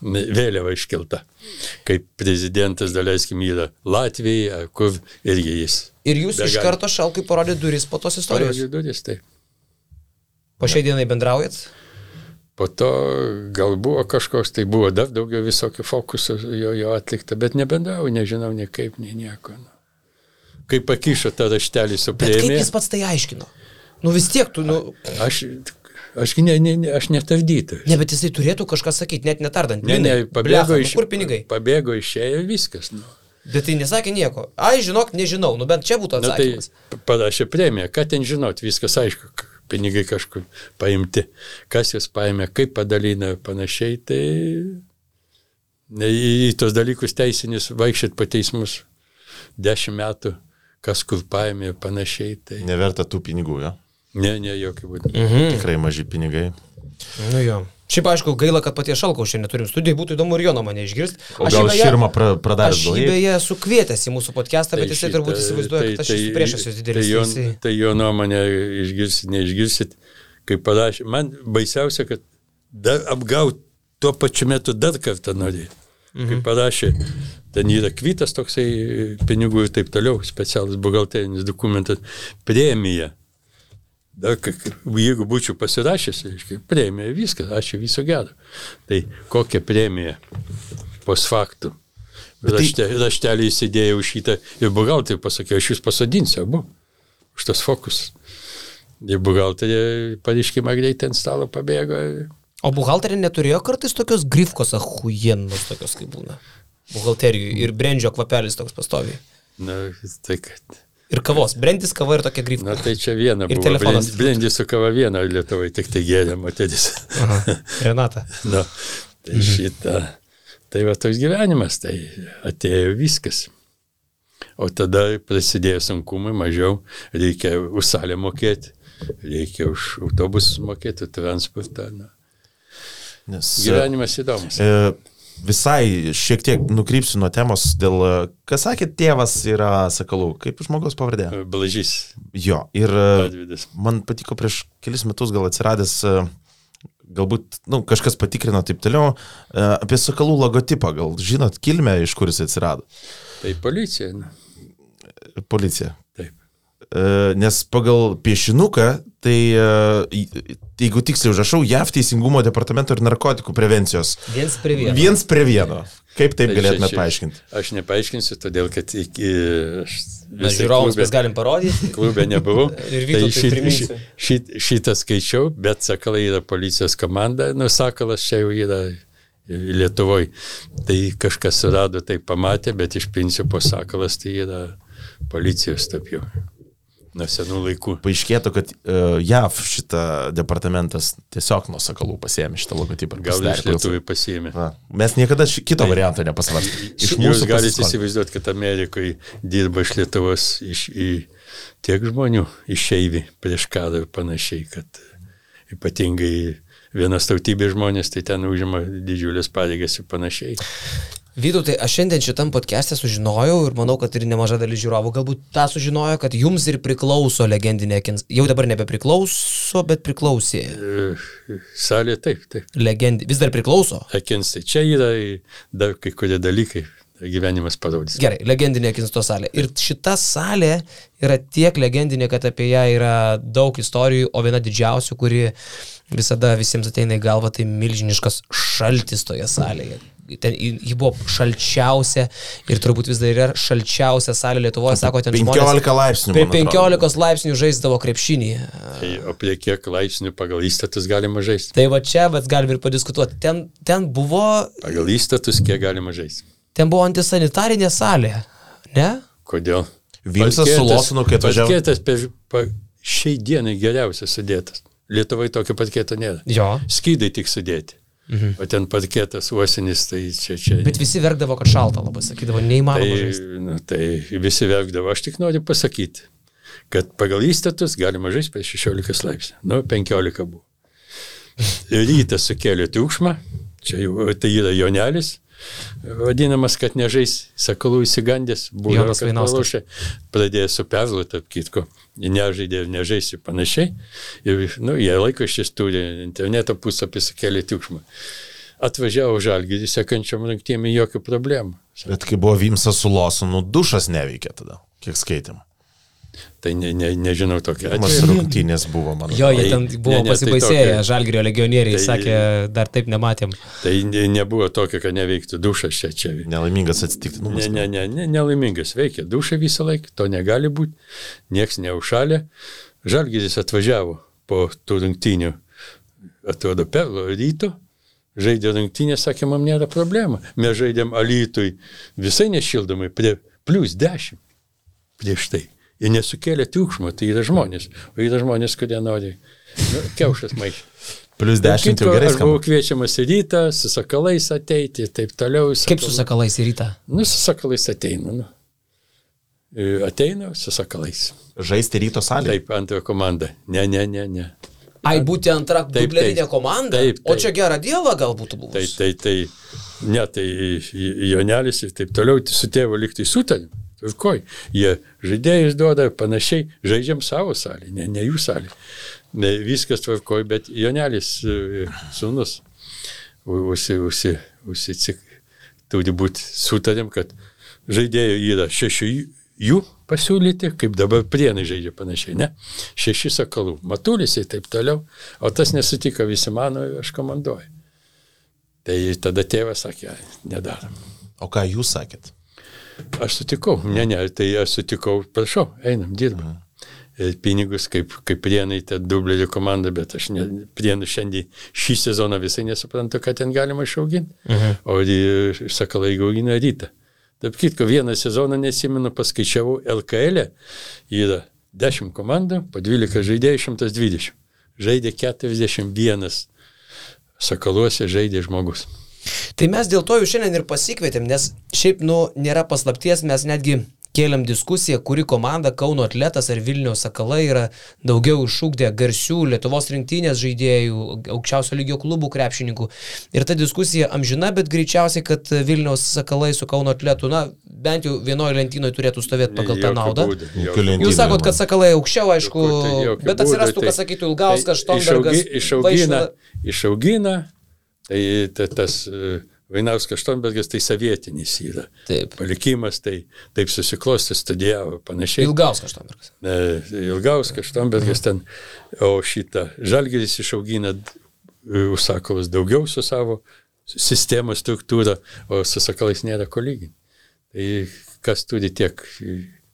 Speaker 3: vėliava iškelta. Kaip prezidentas, daleiskim, yra Latvijai, kur irgi jis.
Speaker 2: Ir jūs iš karto Šalkai parodė duris po tos istorijos?
Speaker 3: Parodė duris, taip.
Speaker 2: Po šiai dienai bendraujat?
Speaker 3: Po to gal buvo kažkoks, tai buvo dar daugiau visokių fokusų jo atlikta, bet nebendrauju, nežinau nei kaip, nei nieko. Kaip pakišo tą raštelį su premija.
Speaker 2: Bet kaip jis pats tai aiškino? Vis tiek tu,
Speaker 3: Aš netavdytas.
Speaker 2: Ne, bet jisai turėtų kažką sakyti, net netardant.
Speaker 3: Ne,
Speaker 2: kur pinigai?
Speaker 3: Pabėgo išėjo viskas.
Speaker 2: Bet tai nesakė nieko. Žinok, nežinau, bent čia būtų atsakymas.
Speaker 3: Tai parašė premiją, ką ten žinot, viskas aišku, pinigai kažkur paimti. Kas jas paėmė, kaip padalina ir panašiai, tai į tos dalykus teisinis vaikščiat po teismus 10 metų. Kas kur paėmė ir panašiai. Tai...
Speaker 1: Neverta tų pinigų, jo?
Speaker 3: Ne, jokių būdų.
Speaker 1: Tikrai maži pinigai.
Speaker 2: Jo. Šiaip aišku, gaila, kad paties Šalkaus šiandien neturim studijai, būtų įdomu ir jo nuomonę išgirsti.
Speaker 1: O gal Širma pradarė?
Speaker 2: Aš jį beje sukvietęs į mūsų podcastą, bet jisai turbūt įsivaizduoja, kad aš esu priešas jos didelis.
Speaker 3: Tai jo nuomonę išgirsit, neišgirsit, kaip parašė. Man baisiausia, kad dar apgauti tuo pačiu metu dar kartą norėjau. Kaip parašė, ten yra kvitas toksai pinigų ir taip toliau, specialus buhalterinis dokumentas, premija. Dar, jeigu būčiau pasirašęs, premija, viskas, ačiū, viso gero. Tai kokia premija post faktų? Raštelį įsidėjau šitą ir buhalterį pasakiau, aš jūs pasodinsiu, abu, už tas fokus. Ir buhalterį pareiškimą greitai ant stalo pabėgo.
Speaker 2: O buhalterį neturėjo kartais tokios grifkos ahujienos, tokios kaip būna buhalterijų ir brendžio kvapelis toks pastoviai.
Speaker 3: Na, tai kad...
Speaker 2: Ir kavos. Brendis, kava ir tokia grifka.
Speaker 3: Na tai čia viena
Speaker 2: ir
Speaker 3: buvo.
Speaker 2: Telefonas.
Speaker 3: Brendis su kava viena Lietuvai, tik tai gėrė moteris.
Speaker 2: Renata.
Speaker 3: Na, tai šitą. Tai va toks gyvenimas, tai atėjo viskas. O tada prasidėjo sunkumai, mažiau, reikia už salę mokėti, reikia už autobusus mokėti, transportą. Na. Gyvenimas įdomus.
Speaker 1: Visai šiek tiek nukrypsiu nuo temos dėl, kas sakė, tėvas yra Sakalų, kaip žmogaus pavardė?
Speaker 3: Blažys.
Speaker 1: Jo, ir
Speaker 3: Advidas.
Speaker 1: Man patiko prieš kelis metus gal atsiradęs, galbūt, kažkas patikrino taip toliau, apie Sakalų logotipą, gal žinot kilmę, iš kur jis atsirado?
Speaker 3: Tai policija. Na.
Speaker 1: Policija.
Speaker 3: Taip.
Speaker 1: Nes pagal piešinuką, tai jeigu tiksliai užrašau, JAV teisingumo departamento ir narkotikų prevencijos. Viens prie vieno. Kaip taip galėtume paaiškinti?
Speaker 3: Aš nepaaiškinsiu, todėl kad
Speaker 2: mes žiūrovams mes galim parodyti.
Speaker 3: Klube nebuvau.
Speaker 2: Tai
Speaker 3: šitą skaičiau, bet Sakalai yra policijos komanda. Sakalas čia jau yra Lietuvoje. Tai kažkas surado, tai pamatė, bet iš principo Sakalas tai yra policijos taip jau. Nuo senų laikų.
Speaker 1: Paaiškėtų, kad JAV šitą departamentas tiesiog nuo Sakalų pasiėmė šitą logotipą.
Speaker 3: Gal iš Lietuvai pasiėmė.
Speaker 1: Mes niekada kito varianto nepasvarstėme.
Speaker 3: Jūs galite įsivaizduoti, kad Amerikoje dirba iš Lietuvos tiek žmonių išeivi prieš karą ir panašiai, kad ypatingai vienas tautybės žmonės, tai ten užima didžiulės pareigas ir panašiai.
Speaker 2: Vytautai, aš šiandien šitam podcast'e sužinojau ir manau, kad ir nemaža dalis žiūrovų galbūt tą sužinojo, kad jums ir priklauso legendinė Akins. Jau dabar nebepriklauso, bet priklausė.
Speaker 3: Salė taip.
Speaker 2: Vis dar priklauso?
Speaker 3: Akins, tai čia yra dar kai kurie dalykai, gyvenimas parodys.
Speaker 2: Gerai, legendinė Akinsto salė. Ir šita salė yra tiek legendinė, kad apie ją yra daug istorijų, o viena didžiausių, kuri visada visiems ateina į galvą, tai milžiniškas šaltis toje salėje. Ji buvo šalčiausia ir turbūt vis dar yra šalčiausia salė Lietuvoje, sako, ten
Speaker 1: 15 laipsnių.
Speaker 2: Prie 15 laipsnių žaisdavo krepšinį.
Speaker 3: Tai, o prie kiek laipsnių pagal įstatus galima žaisti?
Speaker 2: Tai va čia, bet galim ir padiskutuoti. Ten buvo...
Speaker 3: Pagal įstatus kiek galima žaisti?
Speaker 2: Ten buvo antisanitarinė salė, ne?
Speaker 3: Kodėl?
Speaker 1: Vimsas su Losinu, kai atvažiavo.
Speaker 3: Parketas šiai dienai geriausias sudėtas. Lietuvoje tokio parketo nėra.
Speaker 2: Jo.
Speaker 3: Skydai tik sudėti. O ten parketas uosinis, tai čia...
Speaker 2: Bet visi verkdavo, kad šalta labai, sakydavo, neįmanoma žaisti.
Speaker 3: Tai visi verkdavo. Aš tik noriu pasakyti, kad pagal įstatus galima žaisti prie 16 laipsnių. 15 buvo. Rytas sukėlė triukšmą, čia jau tai yra Jonelis, vadinamas, kad nežais, Sakalų įsigandęs, buvo, kad pralošė, pradėjo su Perlu, tarp kitko, nežaidė ir nežais ir panašiai, ir jie laikraštis turi, interneto puslapį sukėlė triukšmą. Atvažiavo Žalgirį, sekančiam rungtynėm jokių problemų.
Speaker 1: Bet kai buvo Vimsas su Losinu, dušas neveikė tada, kiek skaitėm.
Speaker 3: Tai nežinau tokia
Speaker 1: atveju. Rungtynės buvo, man.
Speaker 2: Jo, jie ten buvo pasibaisėję, Žalgirio legionieriai, sakė, dar taip nematėm.
Speaker 3: Tai nebuvo tokio, kad neveiktų dušas čia.
Speaker 1: Nelaimingas atsitiktinumas.
Speaker 3: Nelaimingas veikia dušą visą laiką, to negali būti, nieks neužšalė. Žalgiris atvažiavo po tų rungtynių, atrodo, Perlo ryto, žaidė rungtynės, sakė, man nėra problema. Mes žaidėm Alytui visai nešildomai, prie +10 prieš tai. Jie nesukėlė triukšmo, tai yra žmonės. O yra žmonės, kurie nori kiaušas maišyti.
Speaker 1: +10 jau gerai skamba.
Speaker 3: Aš buvau kviečiamas į rytą, su Sakalais ateiti, taip toliau.
Speaker 2: Kaip su Sakalais į rytą?
Speaker 3: Su Sakalais ateinu. Ateinu su Sakalais.
Speaker 1: Žaisti ryto salėje?
Speaker 3: Taip, antrojo komanda. Ne.
Speaker 2: Ai, būti antra dublerinė komanda?
Speaker 3: Taip.
Speaker 2: O čia gerą dievą gal būtų buvus?
Speaker 3: Tai Jonelis ir taip toliau su tėvu liktai sutarėm. Tvarkoj, jie žaidėjus duoda panašiai, žaidžiam savo salį, ne jų salį. Viskas tvarkoj, bet Jonelis sūnus turi būti sutarėm, kad žaidėjų yra 6 jų pasiūlyti, kaip dabar Prienai žaidžia panašiai, ne? 6 Sakalų, Matulis ir taip toliau, o tas nesutiko, visi mano, aš komanduoju. Tai tada tėvas sakė, nedarom.
Speaker 1: O ką jūs sakėt?
Speaker 3: Aš sutikau, tai aš sutikau, prašau, einam, dirbam. Pinigus, kaip Prienai, ta dublerių komanda, bet aš Prienų šiandien šį sezoną visai nesuprantu, kad ten galima išauginti, o Sakalai augina Rytą. Taip kitko, vieną sezoną nesimenu, paskaičiavau, LKL yra 10 komandų, po 12 žaidėjų 120. Žaidė 41 Sakaluose žaidė žmogus.
Speaker 2: Tai mes dėl to jau šiandien ir pasikvietėm, nes šiaip, nėra paslapties, mes netgi kėlėm diskusiją, kuri komanda, Kauno Atletas ar Vilniaus Sakalai yra daugiau išugdę garsių Lietuvos rinktinės žaidėjų, aukščiausio lygio klubų krepšininkų. Ir ta diskusija amžina, bet greičiausiai, kad Vilniaus Sakalai su Kauno Atletu, bent jau vienoje lentynoje turėtų stovėti pagal tą naudą. Jūs sakot, kad Sakalai aukščiau, aišku, bet atsirastų, kas sakytų, Ilgauskas, Štombergas,
Speaker 3: Išaugina, tai tas Vainauskas Štombergas, tai sovietinis yra.
Speaker 2: Taip.
Speaker 3: Palikimas, tai taip susiklosti, studijavo panašiai.
Speaker 2: Ilgauskas Štombergas.
Speaker 3: Ilgauskas Štombergas ten, o šitą Žalgiris išaugina Sakalus daugiau su savo sistemos struktūra, o su Sakalais nėra ko lyginti. Tai kas turi tiek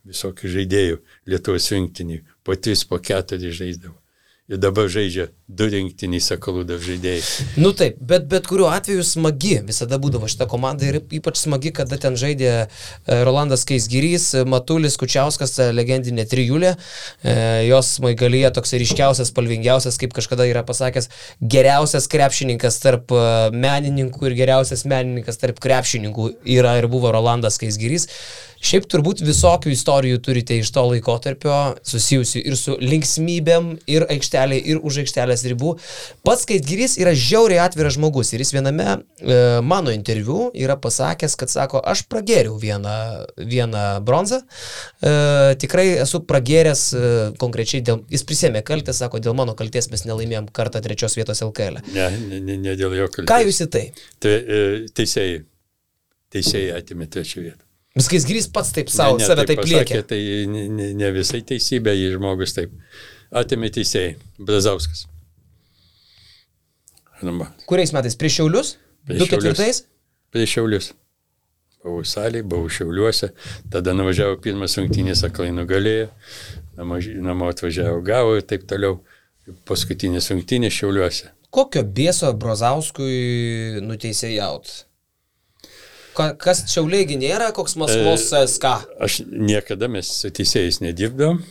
Speaker 3: visokių žaidėjų Lietuvos rinktinį, po 3, po 4 žaisdavo. Ir dabar žaidžia 2 rinktiniai Sakalų dar žaidėjai.
Speaker 2: Taip, bet kuriuo atveju smagi visada būdavo šita komanda ir ypač smagi, kada ten žaidė Rolandas Keisgirys, Matulis, Kučiauskas, legendinė trijulė. Jos smaigalyje toks ryškiausias, spalvingiausias, kaip kažkada yra pasakęs, geriausias krepšininkas tarp menininkų ir geriausias menininkas tarp krepšininkų yra ir buvo Rolandas Keisgirys. Šiaip turbūt visokių istorijų turite iš to laikotarpio, susijusių ir su linksmybėm, ir aikštelė, ir už aikštelės ribų. Pats Keisgirys yra žiauriai atviras žmogus ir jis viename mano interviu yra pasakęs, kad sako, aš pragėriau vieną bronzą, tikrai esu pragėręs konkrečiai, jis prisėmė kaltę, sako, dėl mano kaltės mes nelaimėjom kartą 3 vietos LKL.
Speaker 3: Ne dėl jo kaltės.
Speaker 2: Ką jūs į tai?
Speaker 3: Teisėjai atėmė 3 vietą.
Speaker 2: Keisgirys pats taip save taip liekė.
Speaker 3: Tai ne visai teisybė, jį žmogus taip atėmė teisėjai. Brazauskas.
Speaker 2: Kuriais metais? Prieš Šiaulius? 2004?
Speaker 3: Prieš Šiaulius. Buvau salėje, buvau Šiauliuose, tada nuvažiavo pirmas rungtynės, Sakalai nugalėjo, namo atvažiavo, gavo ir taip toliau. Paskutinės rungtynės Šiauliuose.
Speaker 2: Kokio bėso Brazauskui nuteisėjaut? Kas Šiauliai nėra, koks Maskvos SK?
Speaker 3: Aš niekada mes su teisėjais nedirbdavom,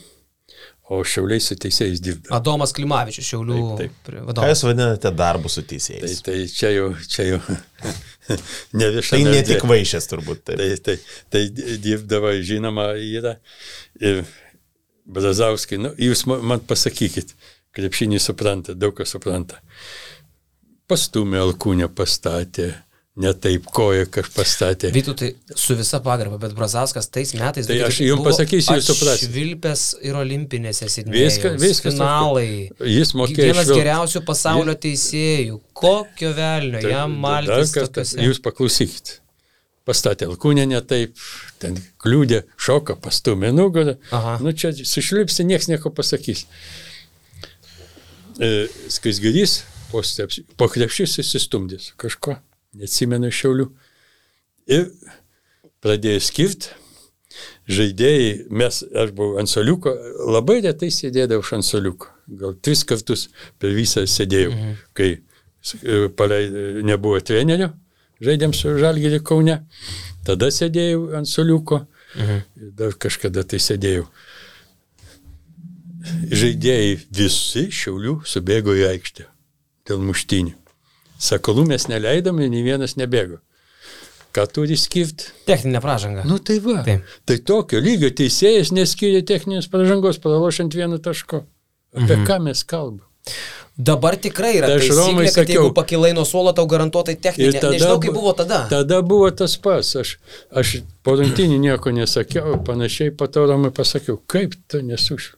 Speaker 3: o Šiauliai su teisėjais dirbdavom.
Speaker 2: Adomas Klimavičius, Šiaulių vadovas.
Speaker 1: Ką jūs vadinate darbu su teisėjais?
Speaker 3: Tai čia jau ne viešame.
Speaker 1: Tai ne tik vaišės turbūt.
Speaker 3: Tai dirbdavo, žinoma, yra. Ir Brazauskai, jūs man pasakykit, krepšinį supranta, daug kas supranta. Pastumė Alkūnę, pastatė. Ne taip koja, kas pastatė.
Speaker 2: Vytautai, su visa pagarba, bet Brazauskas tais metais
Speaker 3: tai aš jums pasakysiu, jūs suprasite.
Speaker 2: Švilpęs ir olimpinėse Sidnėjaus.
Speaker 3: Viskas.
Speaker 2: Finalai.
Speaker 3: Jis mokėjo
Speaker 2: vienas geriausių pasaulio teisėjų. Kokio velnio, jam maltis tokiuose.
Speaker 3: Jūs paklausykit. Pastatė Alkūnę ne taip, ten kliūdė, šoką, pastumė nugarą. Čia sušlipsi, nieks nieko pasakys. Keisgirys po krepšys įsistumdės kažko. Neatsimenu Šiaulių. Ir pradėjo skirti žaidėjai, aš buvau ant suoliuko, labai retai sėdėdavau ant suoliuko. Gal 3 kartus per visą sėdėjau, kai nebuvo trenerio, žaidėm su Žalgiriu Kaune. Tada sėdėjau ant suoliuko, dar kažkada tai sėdėjau. Žaidėjai visi Šiaulių subėgo į aikštę dėl muštynių. Sakalų mes neleidom ir nei vienas nebėgo. Ką turi skirti?
Speaker 2: Techninė pražanga.
Speaker 3: Tai va. Taip. Tai tokio lygio teisėjas neskiria techninės pražangos, pralošiant 1 taško. Apie ką mes kalbam?
Speaker 2: Dabar tikrai yra taisyklė, kad jeigu pakilai nuo suolo, tau garantuotai techninė. Nežinau, kaip buvo tada.
Speaker 3: Tada buvo tas pas. Aš po rungtynių nieko nesakiau, panašiai po to Romui pasakiau, kaip tu nesušiu.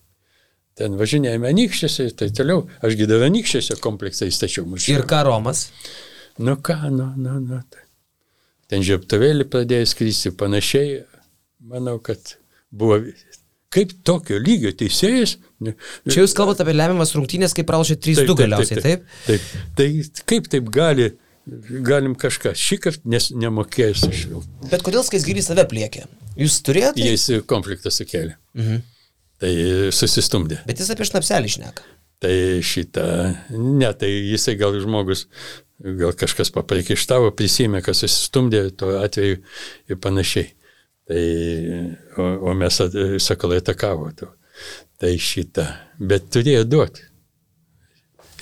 Speaker 3: Ten važinėjame Anykščiuose ir tai toliau. Aš gydavau Anykščiuose kompleksą įstačiau.
Speaker 2: Ir ką Romas?
Speaker 3: Nu ką, nu. Ten žiebtuvėlį pradėjo skristi panašiai. Manau, kad buvo... Kaip tokio lygio teisėjas?
Speaker 2: Čia jūs kalbate apie lemiamas rungtynės, kaip pralašė 3-2 galiausiai, taip?
Speaker 3: Taip. Tai kaip taip galim kažką šįkart nemokėjęs aš jau.
Speaker 2: Bet kodėl Skaisgirys save pliekė? Jūs turėjote?
Speaker 3: Jis konfliktą sukėlė. Tai susistumdė.
Speaker 2: Bet jis apie šnapselį šneka.
Speaker 3: Tai tai jisai gal žmogus, gal kažkas papriekaištavo, prisimė, kas susistumdė tuo atveju ir panašiai. Tai, o mes sakalai atakavo. Tai bet turėjo duoti.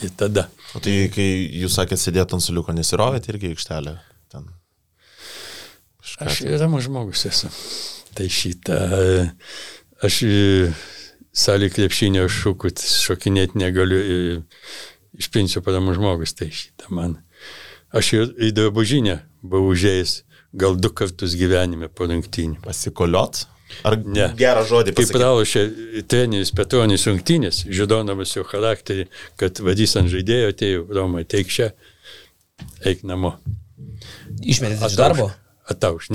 Speaker 3: Ir tada.
Speaker 1: O tai, kai jūs sakėt sėdėt ant suliuko, nesirovėt irgi aikštelę? Ten.
Speaker 3: Aš ramus žmogus esu. Tai aš salį krepšinio šokinėti negaliu, iš principo ramus žmogus. Tai man. Aš į drabužinę buvau užėjęs gal 2 kartus gyvenime po rungtynių.
Speaker 1: Pasikoliot? Ar ne? Gerą žodį pasakyti?
Speaker 3: Kaip pralošė treneris Petronis rungtynės, žinodamas jo charakterį, kad vadys ant žaidėjo, atėjo Romai, teik čia, eik namo.
Speaker 2: Išmetėte iš darbo?
Speaker 3: Atauš.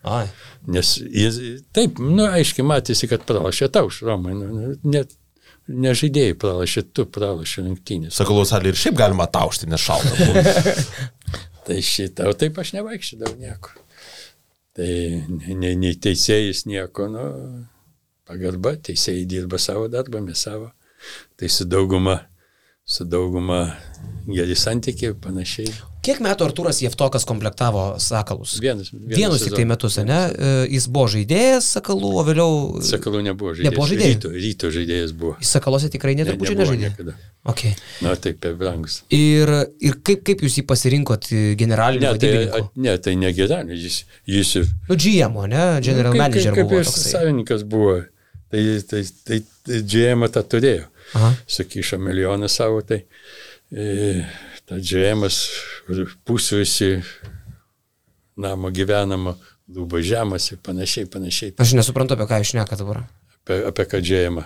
Speaker 2: Ai.
Speaker 3: Nes jis, taip, aiškiai matėsi, kad pralošė atauš Romai, ne žaidėjai pralošė, tu pralošė rungtynės.
Speaker 1: Sakalų salį ir šiaip galima ataušti, nes šalta.
Speaker 3: Tai o taip aš nevaikščiodavau nieko. Tai nei teisėjais nieko, pagarba, teisėjai dirba savo darbą, mes savo. Tai su dauguma geri santykiai, panašiai.
Speaker 2: Kiek metų Artūras Jevtokas komplektavo Sakalus?
Speaker 3: Vienus
Speaker 2: tik tai metus, ne? Jis buvo žaidėjas Sakalų, o vėliau...
Speaker 3: Sakalų nebuvo žaidėjas. Ryto žaidėjas buvo.
Speaker 2: Jis Sakalose tikrai neturbūt nežaidė?
Speaker 3: Niekada.
Speaker 2: Okay.
Speaker 3: Taip, per brangus.
Speaker 2: Ir kaip jūs jį pasirinkot generaliniu vadybininku?
Speaker 3: Tai ne generalinis, jis...
Speaker 2: GM, ne? General manager buvo toksai.
Speaker 3: Kaip savininkas buvo, tai GM tą turėjo. Sakyšo milijoną savo, tai ta GM-as pusvisi namo gyvenamo, lūba žemas ir panašiai.
Speaker 2: Aš nesuprantu, apie ką jūs šneka dabar.
Speaker 3: Apie ką GM-a.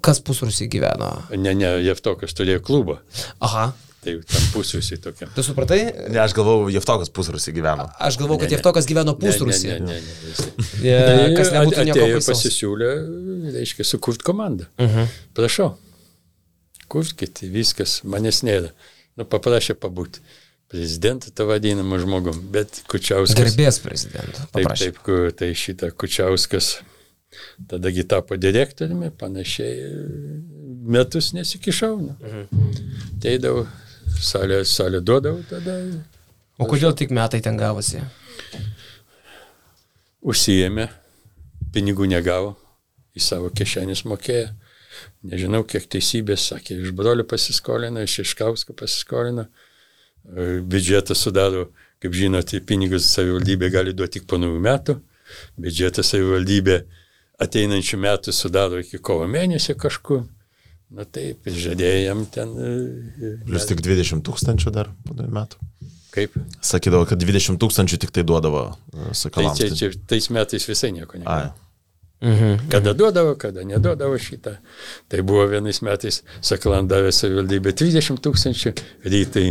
Speaker 2: Kas pusrusį gyveno?
Speaker 3: Ne, Jevtokas turėjo klubą.
Speaker 2: Aha.
Speaker 3: Tai tam pusrusį tokia.
Speaker 2: Tu supratai?
Speaker 1: Ne, aš galvau, Jevtokas pusrusį gyveno.
Speaker 2: Aš galvau, kad Jevtokas gyveno pusrusį.
Speaker 3: Ne.
Speaker 2: Kas nebūtų nieko
Speaker 3: atėjo
Speaker 2: baisaus.
Speaker 3: pasisiūlė, reiškia, sukurt komandą. Prašau, kurkit, viskas, manęs nėra. Paprašė pabūti. Prezidentą tą vadinamą žmogum, bet Kučiauskas...
Speaker 2: Garbės prezidentą paprašė.
Speaker 3: Tai šitą Kučiauskas tadagi tapo direktoriumi, panašiai metus nesikišau. Teidavau, salę duodavau tada.
Speaker 2: O kodėl tik metai ten gavosi?
Speaker 3: Užsiėmė, pinigų negavo, į savo kišenės mokėjo. Nežinau, kiek teisybės, sakė, iš brolio pasiskolino, iš Iškausko pasiskolino. Biudžetą sudaro, kaip žinote, pinigus savivaldybė gali duoti tik po naujų metų. Biudžetą savivaldybė ateinančių metų sudaro iki kovo mėnesio kažkur. Taip, žadėjo jam ten...
Speaker 1: Plius tik 20 000 dar po 2 metų.
Speaker 3: Kaip?
Speaker 1: Sakydavo, kad 20 000 tik tai duodavo Sakalams.
Speaker 3: Tai tais metais visai nieko nebuvo. Kada duodavo, kada neduodavo šitą. Tai buvo vienais metais Sakalam davė savivaldybė 30 000, rytai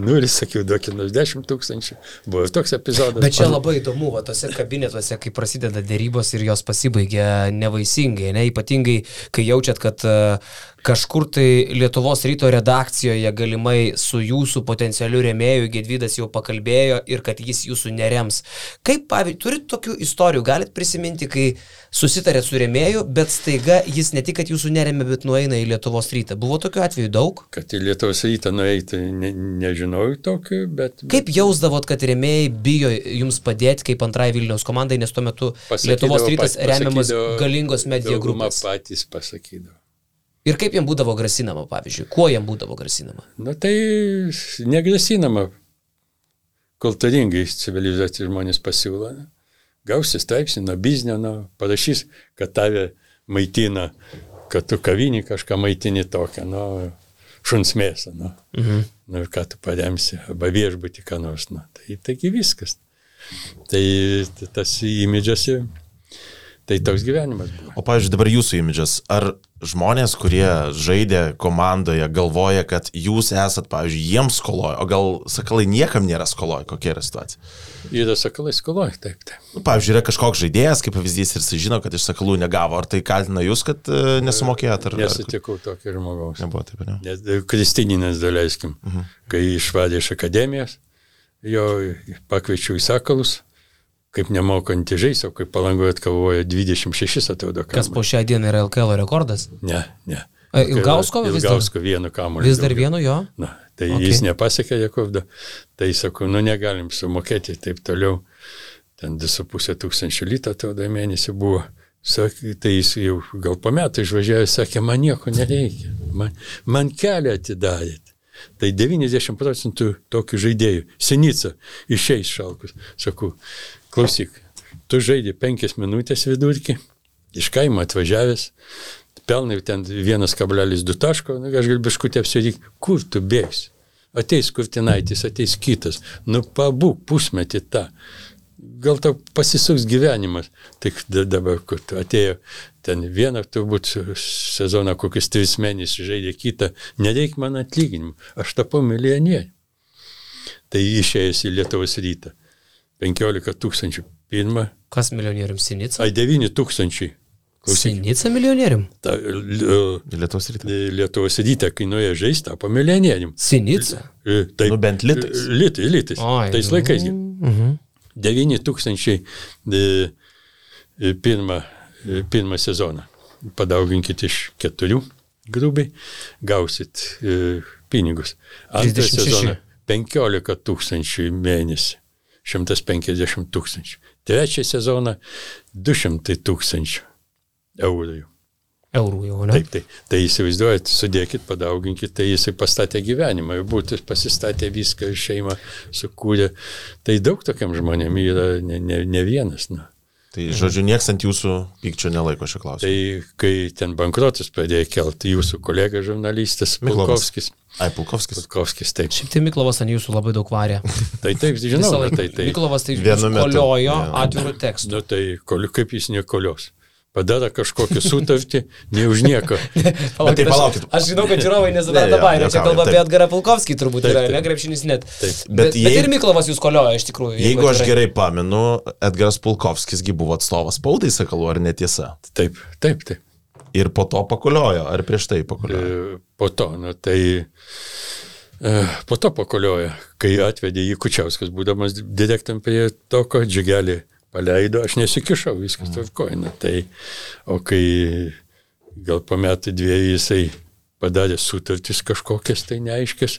Speaker 3: 0, sakiau, duokit 10 000. Buvo toks epizodas.
Speaker 2: Bet čia labai įdomu, tose kabinetuose, kai prasideda dėrybos ir jos pasibaigia nevaisingai, ne? Ypatingai, kai jaučiat, kad kažkur tai Lietuvos ryto redakcijoje galimai su jūsų potencialiu rėmėju Gedvydas jau pakalbėjo ir kad jis jūsų nerems. Kaip, pavyzdžiui, turit tokių istorijų, galit prisiminti, kai susitarėt su rėmėju, bet staiga jis ne tik, kad jūsų neremė, bet nueina į Lietuvos rytą. Buvo tokių atvejų daug?
Speaker 3: Kad į Lietuvos rytą nueiti, nežinau tokių, bet...
Speaker 2: Kaip jausdavot, kad rėmėjai bijo jums padėti kaip antrai Vilniaus komandai, nes tuo metu Lietuvos rytas remiamas galingos media grupės?
Speaker 3: Patys pasakydavo.
Speaker 2: Ir kaip jam būdavo grasinama, pavyzdžiui? Kuo jam būdavo grasinama?
Speaker 3: Tai negrasinama. Kultūringai civilizuoti žmonės pasiūlo. Gausi straipsnį nuo biznio, parašys, kad tave maitina, kad tu kavinį kažką maitini tokią. šuns mėsą, nu. Nu ir ką tu paremsi, arba viešbutį ką nors, nu. Taigi viskas. Tai tas imidžas, tai toks gyvenimas buvo.
Speaker 1: O pavyzdžiui, dabar jūsų imidžas, ar žmonės, kurie žaidė komandoje, galvoja, kad jūs esat, pavyzdžiui, jiems skoloje, o gal Sakalai niekam nėra skoloje, kokia yra situacija?
Speaker 3: Yra Sakalai skoloje, taip.
Speaker 1: Nu, pavyzdžiui, yra kažkoks žaidėjas, kaip pavyzdys, ir jis žino, kad iš Sakalų negavo, ar tai kaltina jūs, kad nesumokėjot?
Speaker 3: Nesutikau tokio žmogaus.
Speaker 1: Nebuvo taip, ne?
Speaker 3: Kristininas, daleiskim, kai išvadė iš akademijos, jo pakviečiau į Sakalus, kaip nemokantį žaisti, o kaip Palangoje atkovojo 26, atrodo, kamuolį.
Speaker 2: Kas po šią dieną yra LKL rekordas?
Speaker 3: Ne.
Speaker 2: Ilgausko vis dar?
Speaker 3: Ilgausko vienu kamuolį.
Speaker 2: Vis dar vienu jo?
Speaker 3: Na, tai jis nepasiekė rekordą. Tai sakau, negalim sumokėti taip toliau. Ten 2,5 litų atrodo mėnesį buvo. Sakė, tai jis jau gal po metų išvažiavo, sakė, man nieko nereikia. Man kelią atidarėt. Tai 90% tokių žaidėjų. Senica išeis Šalkus. Sakau, klausyk, tu žaidži 5 minutės vidurkį, iš kaimo atvažiavęs, pelnai ten 1,2 taško, aš galiu biškutį apsiryk, kur tu bėgsi? Ateis Kurtinaitis, ateis kitas, nu pabūk pusmetį tą. Gal tau pasisuks gyvenimas. Tik dabar, kur tu atėjo ten vieną, turbūt sezoną kokius 3 mėnesius žaidė kitą, nereik man atlyginimų, aš tapau milijonierių. Tai išėjęs į Lietuvos Rytą. 15 000 pirmą.
Speaker 2: Kas milijonierium? Sinica?
Speaker 3: 9 000.
Speaker 2: Sinica milijonierium?
Speaker 1: Lietuvos Rytą.
Speaker 3: Lietuvos Rytą, kai nuėjo žaisti, tapo milijonierium.
Speaker 2: Sinica?
Speaker 3: Taip,
Speaker 1: nu bent litais.
Speaker 3: Litais. Tais laikais. 9 000 pirmą sezoną. Padauginkit iš 4 grubiai, gausit pinigus. Antrą sezoną 15 000 mėnesį. 150 000. Trečią sezoną 200 000 eurų.
Speaker 2: Eurų jau, ne?
Speaker 3: Taip. Tai įsivaizduojat, sudėkit, padauginkit, tai jisai pastatė gyvenimą, būtų pasistatė viską, šeimą sukūrė. Tai daug tokiam žmonėm yra ne vienas. Na.
Speaker 1: Tai, žodžiu, nieks ant jūsų pykčio nelaiko šio klausimo.
Speaker 3: Tai, kai ten bankrotus pradėjo kelti jūsų kolega žurnalistas Pulkovskis. Pulkovskis, taip.
Speaker 2: Šiaip tai Miklovas ant jūsų labai daug varė.
Speaker 3: Taip, žinau.
Speaker 2: Miklovas tai koliojo atvirų tekstų.
Speaker 3: Nu, tai kaip jis nekolios. Padara kažkokią sutartį, ne už nieką.
Speaker 1: Palaukit.
Speaker 2: Aš žinau, kad žiūrovai nesupranta baimę. Čia kalba apie Edgarą Pulkovskį turbūt yra, ne krepšinis net. Bet ir Miklovas jūs kolioja iš tikrųjų.
Speaker 1: Jeigu aš gerai pamenu, Edgaras Pulkovskisgi buvo atstovas spaudai Sakalų, ar netiesa?
Speaker 3: Taip.
Speaker 1: Ir po to pakoliojo, ar prieš tai pakoliojo?
Speaker 3: Po to, po to pakoliojo, kai atvedė jį Kučiauskas, būdamas direktorium prie toko džigelį. Paleido, aš nesikišau, viskas tvarkojina. Tai, o kai gal po metų 2 jisai padarė sutartis kažkokias, tai neaiškės.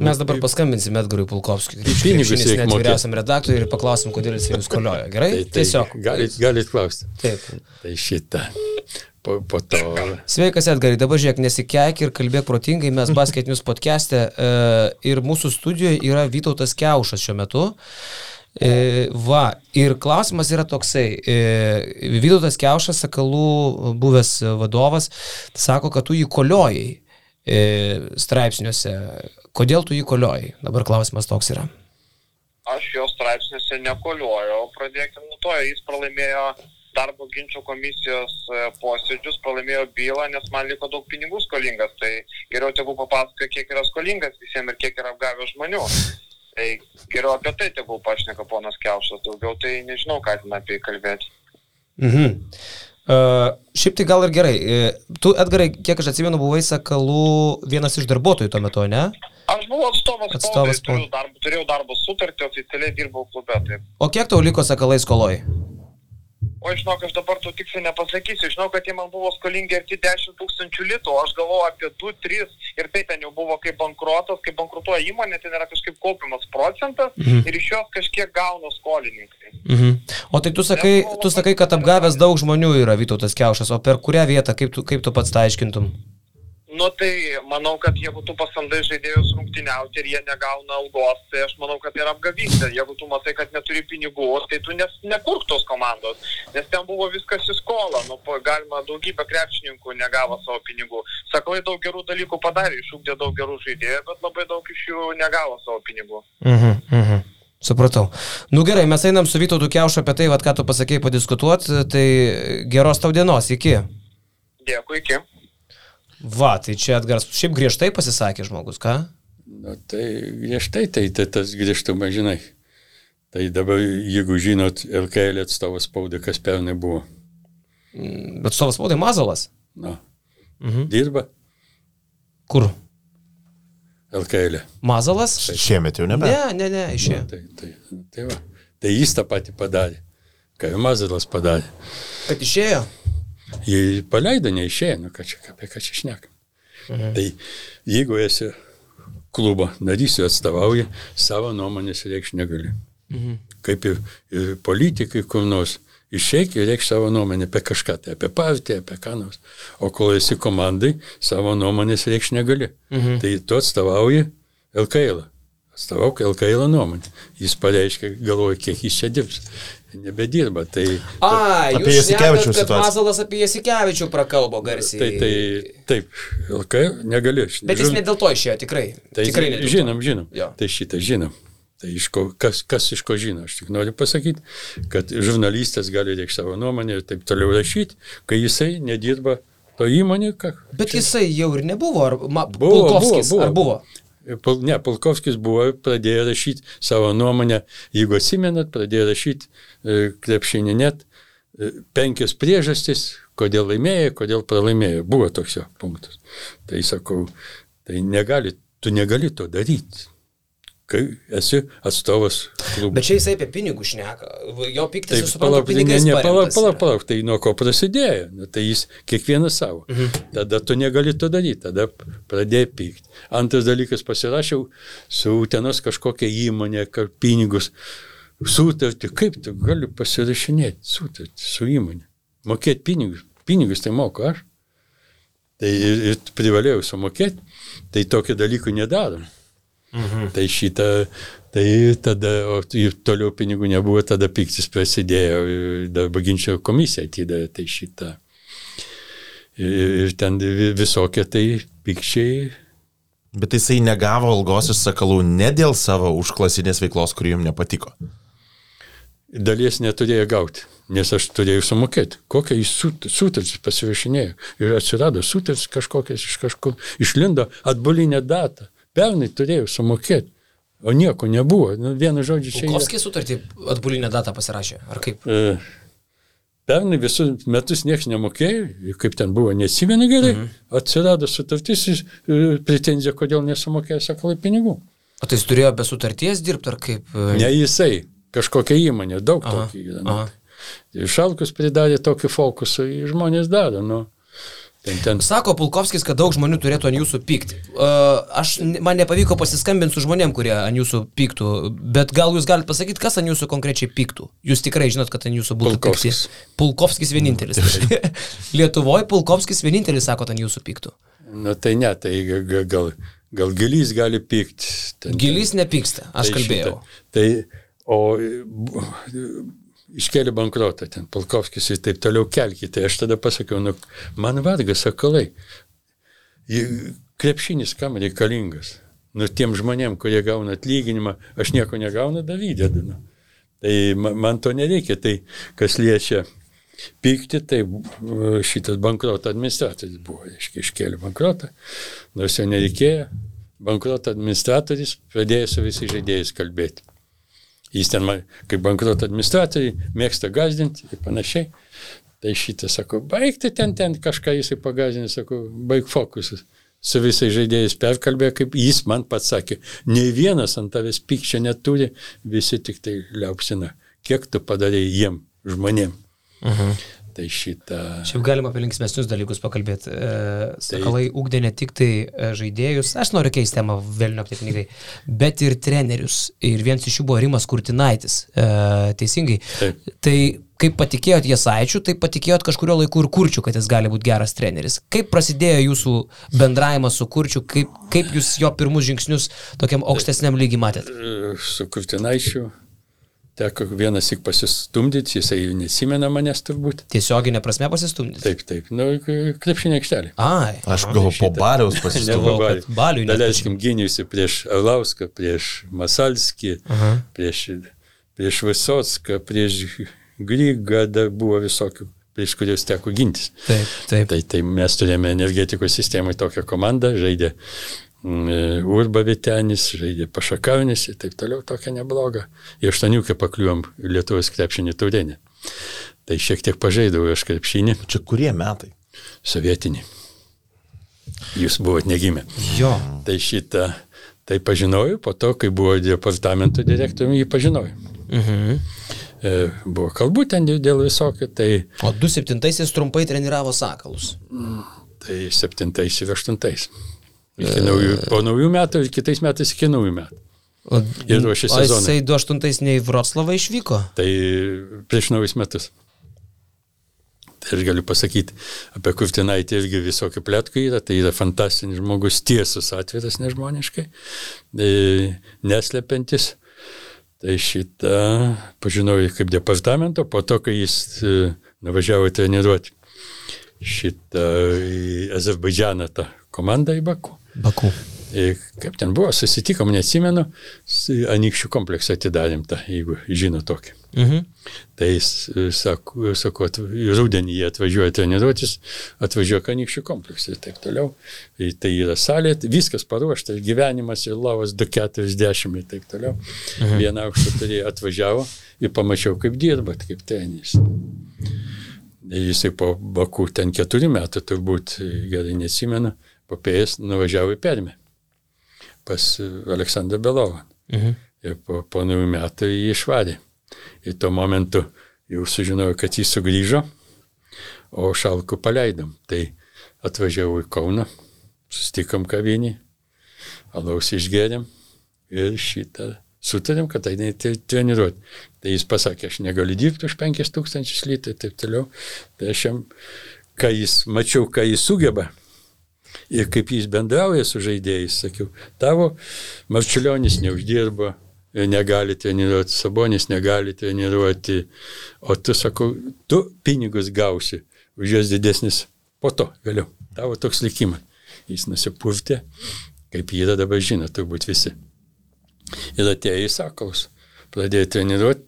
Speaker 2: Mes dabar paskambinsime Edgarui Pulkovskiui, krepšinis net vyriausiam redaktoriui ir paklausim, kodėl jis jūs kolioja. Gerai? Tiesiog.
Speaker 3: Galit klausti.
Speaker 2: Taip.
Speaker 3: Tai šitą. Po to.
Speaker 2: Sveikas Edgarai, dabar žiūrėk, nesikeik ir kalbėk protingai, mes Basket News podcast'e ir mūsų studijoje yra Vytautas Kiaušas šiuo metu. Ir klausimas yra toksai, Vytautas Kiaušas, Sakalų buvęs vadovas, sako, kad tu jį koliojai straipsniuose. Kodėl tu jį koliojai? Dabar klausimas toks yra.
Speaker 4: Aš jo straipsniuose nekoliojau, pradėkime nuo to, jis pralaimėjo darbo ginčio komisijos posėdžius, pralaimėjo bylą, nes man liko daug pinigų skolingas, tai geriau tegu papasakoja, kiek yra skolingas visiems ir kiek yra apgavęs žmonių. Tai geriau apie tai tegul pašneka ponas Kiaušas, daugiau tai nežinau, ką ten apie kalbėti.
Speaker 2: Šiaip tai gal ir gerai. Tu, Edgarai, kiek aš atsimenu, buvai Sakalų vienas iš darbuotojų tuo metu, ne?
Speaker 4: Aš buvau atstovas spaudai, turėjau darbo sutartį, oficialiai dirbau klube. Taip.
Speaker 2: O kiek tau liko Sakalai skoloj?
Speaker 4: O žinok, aš dabar to tiksliai nepasakysiu. Žinau, kad jie man buvo skolingi arti 10 000 litų, aš galvoju apie 2-3 ir tai ten jau buvo kaip bankruotas, kaip bankrutuoja įmonė, ten yra kažkaip kaupiamas procentas ir iš jos kažkiek gauna skolininkai.
Speaker 2: O tai tu sakai, kad apgavęs daug žmonių yra Vytautas Kiaušas, o per kurią vietą, kaip tu pats tai aiškintum?
Speaker 4: Nu tai manau, kad jeigu tu pasamdai žaidėjus rungtyniauti ir jie negauna algos, tai aš manau, kad tai yra apgavystė. Jeigu tu matai, kad neturi pinigų, tai tu nekurk tos komandos, nes ten buvo viskas į skolą. Nu, galima daugybę krepšininkų negavo savo pinigų. Sakalai daug gerų dalykų padarė, išugdė daug gerų žaidėjų, bet labai daug iš jų negavo savo pinigų.
Speaker 2: Supratau. Nu gerai, mes einam su Vytautu Kiaušu apie tai, ką tu pasakėjai padiskutuoti, tai geros tau dienos, iki.
Speaker 4: Dėkui, iki.
Speaker 2: Va, tai čia Edgaras šiaip griežtai pasisakė žmogus, ką?
Speaker 3: Na tai griežtai, tai tas griežtumas, žinai. Tai dabar, jeigu žinot, LKL atstovas spaudai, kas pernai buvo.
Speaker 2: Bet atstovas spaudai Mazalas?
Speaker 3: Na, dirba.
Speaker 2: Kur?
Speaker 3: LKL.
Speaker 2: Mazalas?
Speaker 1: Šiemet jau nebe.
Speaker 2: Ne, išėjo.
Speaker 3: Tai va. Tai jis tą patį padarė, ką Mazalas padarė.
Speaker 2: Kad išėjo?
Speaker 3: Jie paleido, neišėjo, nu apie ką čia šnekam. Tai jeigu esi klubo narys, jo atstovauja, savo nuomonės reikš negali. Kaip ir politikai kur nors išeik ir reikš savo nuomonę apie kažką, tai apie partiją, apie ką nors. O kol esi komandai, savo nuomonės reikš negali. Tai tu atstovauji LKL. Atstovauk LKL nuomonę. Jis pareiškia, galvoja, kiek jis čia dirbs. Nebedirba, tai...
Speaker 1: Apie Jasikevičių
Speaker 2: situaciją. Kad Mazalas apie Jasikevičių prakalbo garsiai.
Speaker 3: Taip, LKL negali.
Speaker 2: Bet jis ne dėl to išėjo, tikrai.
Speaker 3: Tai
Speaker 2: tikrai
Speaker 3: žinom.
Speaker 2: Jo.
Speaker 3: Tai šitą žinom. Tai kas iš ko žino? Aš tik noriu pasakyti, kad žurnalistas gali reikšti savo nuomonę ir taip toliau rašyti, kai jisai nedirba to įmonė.
Speaker 2: Bet jisai jau ir nebuvo, ar Pulkovskis, ar buvo?
Speaker 3: Ne, Pulkovskis buvo, pradėjo rašyti savo nuomonę, jeigu atsimenat, pradėjo rašyti krepšinį net 5 priežastis, kodėl laimėjo, kodėl pralaimėjo. Buvo toks jo punktas. Tai sakau, tai tu negali to daryti, kai esi atstovas klubų.
Speaker 2: Bet čia jisai apie pinigų šneka. Jo piktis, suprantu, pinigais paremtas.
Speaker 3: Palauk, tai nuo ko prasidėjo. Tai jis kiekvienas savo. Tada tu negali to daryti, tada pradėjai pykti. Antras dalykas, pasirašiau su Utenos kažkokia įmonė, pinigus, sutartį. Kaip tu gali pasirašinėti sutartį su įmonė? Mokėti pinigus. Pinigus tai moku aš. Tai ir privalėjau sumokėti. Tai tokio dalykų nedarom. Tai šitą, tai tada, o toliau pinigų nebuvo, tada piktis prasidėjo, darbo ginčio komisija atidavė, tai šitą. Ir ten visokie tai pikčiai.
Speaker 1: Bet jisai negavo algos iš Sakalų ne dėl savo užklasinės veiklos, kuri jums nepatiko.
Speaker 3: Dalies neturėjo gauti, nes aš turėjau sumokėti. Kokią jis sutartis pasirašinėjo. Ir atsirado sutartis kažkokias iš kažkur, išlindo atbulinę datą. Pernai turėjau sumokėti, o nieko nebuvo. Vienu žodžiu čia...
Speaker 2: Pulkovskis sutartį atbulinę datą pasirašė, ar kaip?
Speaker 3: Pernai visus metus niekas nemokėjo, kaip ten buvo, neatsimenu gerai, atsirado sutartis, pretenzija, kodėl nesumokėjo Sakalai pinigų.
Speaker 2: O tai jis turėjo be sutarties dirbti, ar kaip?
Speaker 3: Ne jisai, kažkokia įmonė, daug tokį yra. Šalkus pridarė tokį fokusą, žmonės daro,
Speaker 2: Sako Pulkovskis, kad daug žmonių turėtų ant jūsų pykti. Man nepavyko pasiskambinti su žmonėm, kurie ant jūsų pyktų, bet gal jūs galite pasakyti, kas ant jūsų konkrečiai pyktų? Jūs tikrai žinot, kad ant jūsų būtų pykti. Pulkovskis vienintelis. Lietuvoje Pulkovskis vienintelis, sako, ant jūsų pyktų.
Speaker 3: Tai ne, tai gal Gilys gali pykti.
Speaker 2: Gilys nepyksta, aš kalbėjau.
Speaker 3: Iškėlė bankrotą ten, Pulkovskis ir taip toliau kelkite. Aš tada pasakiau, man vargas Sakalai. Krepšinis kam reikalingas? Tiem žmonėm, kurie gauna atlyginimą, aš nieko negaunu, įdedu. Tai man to nereikia. Tai kas liečia pykti, tai šitas bankroto administratorius buvo. Iškėlė bankrotą, nors jo nereikėjo. Bankroto administratorius pradėjo su visais žaidėjais kalbėti. Jis ten, kaip bankroto administratoriai, mėgsta gazdinti ir panašiai. Tai šitą, sako, baigti ten kažką jisai pagazdinti, sako, baig fokusas. Su visais žaidėjais perkalbėjo, kaip jis man pats sakė, nei vienas ant tavęs pykčio neturi, visi tik tai liaupsina. Kiek tu padarei jiem, žmonėm. Tai šitą...
Speaker 2: Šiaip galima apie linksmesnius dalykus pakalbėti. Sakalai ugdė ne tik tai žaidėjus, aš noriu keisti temą velnio apie pinigai, bet ir trenerius. Ir vienas iš jų buvo Rimas Kurtinaitis. Teisingai. Taip. Tai kaip patikėjot Jasaičiu, taip patikėjot kažkurio laiku ir Kurčiu, kad jis gali būti geras treneris. Kaip prasidėjo jūsų bendravimas su Kurčiu, kaip jūs jo pirmus žingsnius tokiam aukštesniam lygiai matėt?
Speaker 3: Su Kurtinaičiu teko vienas tik pasistumdyti, jisai nesimena manęs turbūt.
Speaker 2: Tiesioginė prasme pasistumdyti?
Speaker 3: Taip. Krepšinio aikštelė.
Speaker 2: Ai.
Speaker 1: Aš gal po Baliaus pasistumdžiau.
Speaker 3: Daleiskim, gyniausi prieš Arlauską, prieš Masalskį, prieš Visocką, prieš Grygą, buvo visokių, prieš kurios teko gintis.
Speaker 2: Taip.
Speaker 3: Tai mes turėjome energetikos sistemai tokią komandą, žaidė Urba Vitenis, žaidė Pašakaunis ir taip toliau, tokia nebloga. Į 8 pakliuvom Lietuvos krepšinį taurėnį. Tai šiek tiek pažaidau aš krepšinį.
Speaker 1: Čia kurie metai?
Speaker 3: Sovietinį. Jūs buvot negimę.
Speaker 2: Jo.
Speaker 3: Tai šitą, tai pažinojau, po to, kai buvo departamento direktoriumi, jį pažinojau. Buvo kalbų ten dėl visokio, tai...
Speaker 2: O 2007-aisiais trumpai treniravo Sakalus.
Speaker 3: Tai 7-ais ir 8-ais. Po naujų metų ir kitais metais iki naujų metų. Ir ruošė sezoną.
Speaker 2: O jisai 2008 ne į Vroclavą išvyko?
Speaker 3: Tai prieš naujus metus. Tai aš galiu pasakyti, apie Kurtinaitį irgi visokių pletkų yra, tai yra fantastinis žmogus, tiesus, atviras nežmoniškai, neslepiantis. Tai šitą pažinojau kaip departamento, po to, kai jis nuvažiavo treniruoti šitą į Azerbaidžaną tą komandą į Baku. Kaip ten buvo, susitikom, neatsimenu, Anykščių kompleksą atidarėm tą, jeigu žino tokį. Tai jis sako, rudenį jie atvažiuoja treniruotis, atvažiuoja Anykščių kompleksą ir taip toliau. Tai yra salė, viskas paruošta, gyvenimas ir lavas 240 ir taip toliau. Vieną aukštą turėjo, atvažiavo ir pamačiau, kaip dirbat, kaip treneris. Jisai po Baku ten 4 metų, turbūt gerai neatsimenu, papėjęs nuvažiavo į Permę pas Aleksandrą Belovą. Ir po naujų metų jį išvarė. Ir tuo momentu jau sužinojau, kad jis sugrįžo, o Šalkų paleidom. Tai atvažiavau į Kauną, susitikom kavinį, alaus išgėrėm ir šitą sutarėm, kad tai treniruoti. Tai jis pasakė, aš negaliu dirbti už 5000 litų ir taip toliau. Tai aš jam, mačiau, ką jis sugeba ir kaip jis bendrauja su žaidėjais, sakiau, tavo Marčiulionis neuždirba, negali treniruoti, Sabonis negali treniruoti, o tu, sakau, tu pinigus gausi, už juos didesnis po to, vėliau. Tavo toks likimas. Jis nusipurtė, kaip jį dabar žino, turbūt visi. Ir atėjo į Sakalus, pradėjo treniruoti,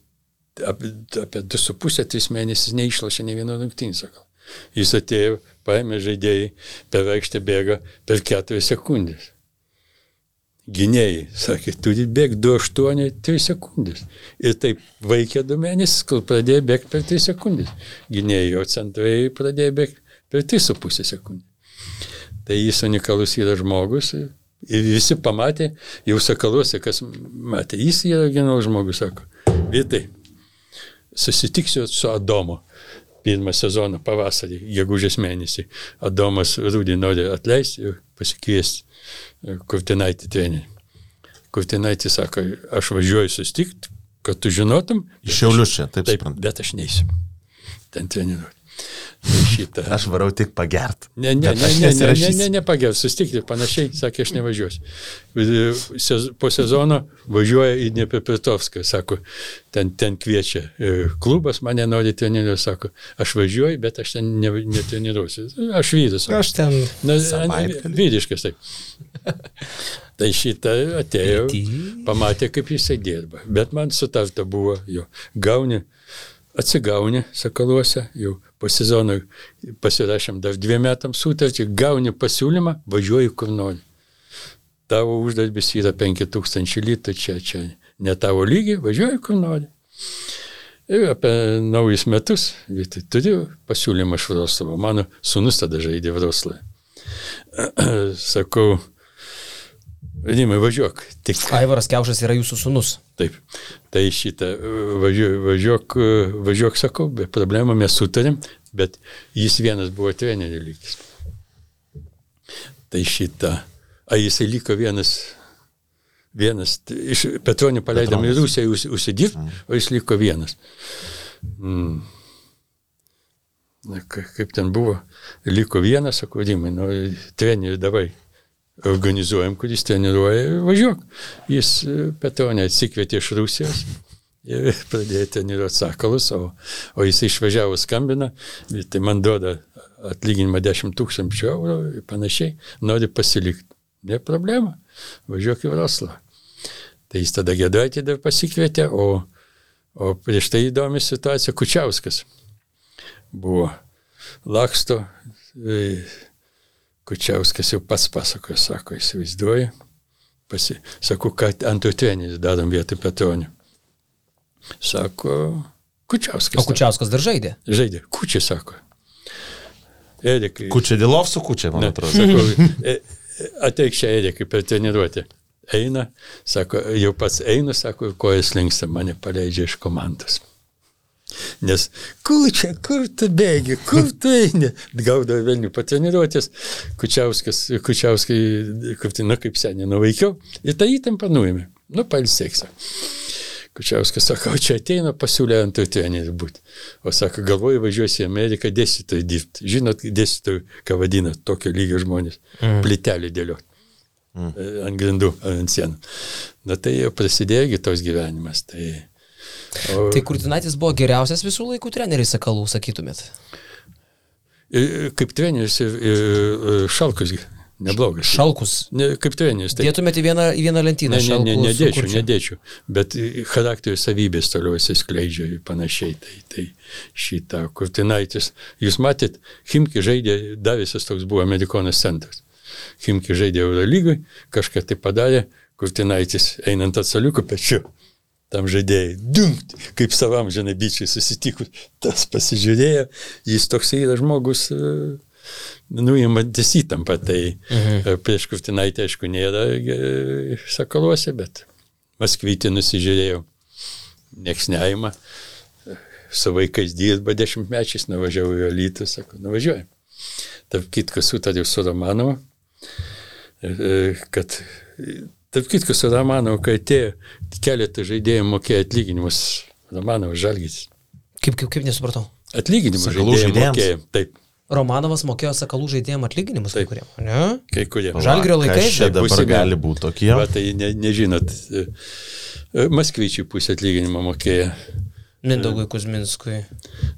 Speaker 3: apie 2,5-3 mėnesius neišlašė ne vieno rungtynį, sakau. Jis atėjo, paėmė žaidėjai, per aikštę bėga per 4 sekundės. Gynėjai, sakė, turi bėgti 2,8, 3 sekundės. Ir taip vaikė 2 mėnesius, kol pradėjo bėgti per 3 sekundės. Gynėjai, o centrai pradėjo bėgti per 3,5 sekundės. Tai jis unikalus yra žmogus. Ir visi pamatė, jau Sakaluose, kas matė, jis yra genialus žmogus, sako, Vytai, susitiksiu su Adomu. Pirmą sezoną pavasarį, gegužės mėnesį. Adomas Rūdį nori atleisti ir pasikviesti Kurtinaitį trenerį. Kurtinaitį sako, aš važiuoju susitikti, kad tu žinotum.
Speaker 1: Iš Šiaulius čia, taip suprantu.
Speaker 3: Bet aš neisiu ten treniruoti.
Speaker 1: Aš varau tik pagert.
Speaker 3: Ne pagert, susitikti ir panašiai, sakė, aš nevažiuosiu. Po sezono važiuoja į Dniepropetrovską, sako, ten kviečia klubas, mane nori treniruoti, sako, aš važiuoju, bet aš ten netreniruosiu. Aš vyras.
Speaker 2: Aš ten
Speaker 3: vyriškas, taip. Tai šitą atėjo, pamatė, kaip jisai dirba. Bet man sutarta buvo, jo, atsigauni Sakaluose, jau po sezono pasirašėm dar 2 metams sutartį, gauni pasiūlymą, važiuoji kur nori. Tavo uždarbis yra 5000 litų, čia ne tavo lygiai, važiuoji kur nori. Ir apie naujus metus, turiu pasiūlymą iš Vroclavo, mano sūnus tada žaidė Vroclave. Sakau, Rimai, važiuok.
Speaker 2: Aivaras Kiaušas yra jūsų sūnus.
Speaker 3: Taip. Tai šitą važiuok, sakau, be problemų mes sutarėm, bet jis vienas buvo trenerių lygis. Tai jisai liko vienas, iš Petronį paleidom į Rusiją užsidirbti, o jis liko vienas. Kaip ten buvo, liko vienas, sako, Rimai, trenerių davai organizuojam, kuris treniruoja, važiuok. Jis Petronį atsikvietė iš Rusijos ir pradėjo treniruoti sakalus, o jis išvažiavo skambina, tai man duoda atlyginimą 10 000 eurų ir panašiai, nori pasilikti. Ne problema, važiuok į Vroclavą. Tai jis tada Giedraitį dar pasikvietė, o prieš tai įdomi situacija, Kučiauskas buvo laksto, Kučiauskas jau pats pasakojo, sako, įsivaizduoju, sakau, kad antrų treneris darom vietoj Petronio. Sako, Kučiauskas.
Speaker 2: O Kučiauskas dar žaidė?
Speaker 3: Žaidė, Kučiai sako. Erikai.
Speaker 1: Kučiai Dilov su Kučiai, man atrodo.
Speaker 3: Sakau, ateik čia Erikai per treniruotę. Eina, sako, jau pats einu, sako, kojas linksta, mane paleidžia iš komandos. Nes, kur tu bėgi, kur tu eini? Gaudavo Vilnių patreniruotės, Kučiauskai, kaip seniai nuveikiau, ir tą įtampą nuėmė. Pailsėksiu. Kučiauskas sako, čia ateina, pasiūlė antrų trenerių būti. O sako, galvoju, važiuosi į Ameriką dėstytojų dirbti. Žinot, dėstytojų, ką vadina, tokio lygio žmonės. Plytelį dėlioti. Ant grindų, ant sienų. Tai jau prasidėjo tos gyvenimas.
Speaker 2: Tai Kurtinaitis buvo geriausias visų laikų treneris Sakalų, sakytumėt?
Speaker 3: Kaip treneris ir Šalkus neblogas.
Speaker 2: Šalkus?
Speaker 3: Kaip treneris.
Speaker 2: Dėtumėte į vieną lentyną Šalkus?
Speaker 3: Nedėčiau. Bet charakterio savybės toliau įsiskleidžia ir panašiai. Tai šitą Kurtinaitis. Jūs matėt, Chimki žaidė, Davisas toks buvo Amerikonas centras. Chimki žaidė Eurolygui, kažką tai padarė, Kurtinaitis einant atsaliukų pečiu. Tam žaidėjai, dunkt, kaip savam žanabičiai susitikus, tas pasižiūrėjo, jis toks yra žmogus, nuimantis įtampą, tai prieš Kurtinaitį, aišku, nėra Sakaluose, bet Maskvytį nusižiūrėjau, nieks neima, su vaikais dirba 10-mečiais, nuvažiavau į Alytų, sako, nuvažiuojam. Tarp kitko sutariau su Romanovu, kad tarp kitko su Romanovu, kai atėjo keletą žaidėjų mokėjo atlyginimus, Romanovas Žalgiris.
Speaker 2: Kaip nesupratau?
Speaker 3: Atlyginimus žaidėjų mokėjo, taip.
Speaker 2: Romanovas mokėjo Sakalų žaidėjams atlyginimus kai kuriem, ne?
Speaker 3: Kai kuriem.
Speaker 2: Žalgirio laikais.
Speaker 1: Čia dabar gali būti tokie.
Speaker 3: Va, tai nežinot, Maskvyčiui pusę atlyginimą mokėjo.
Speaker 2: Mindaugui Kuzminskui.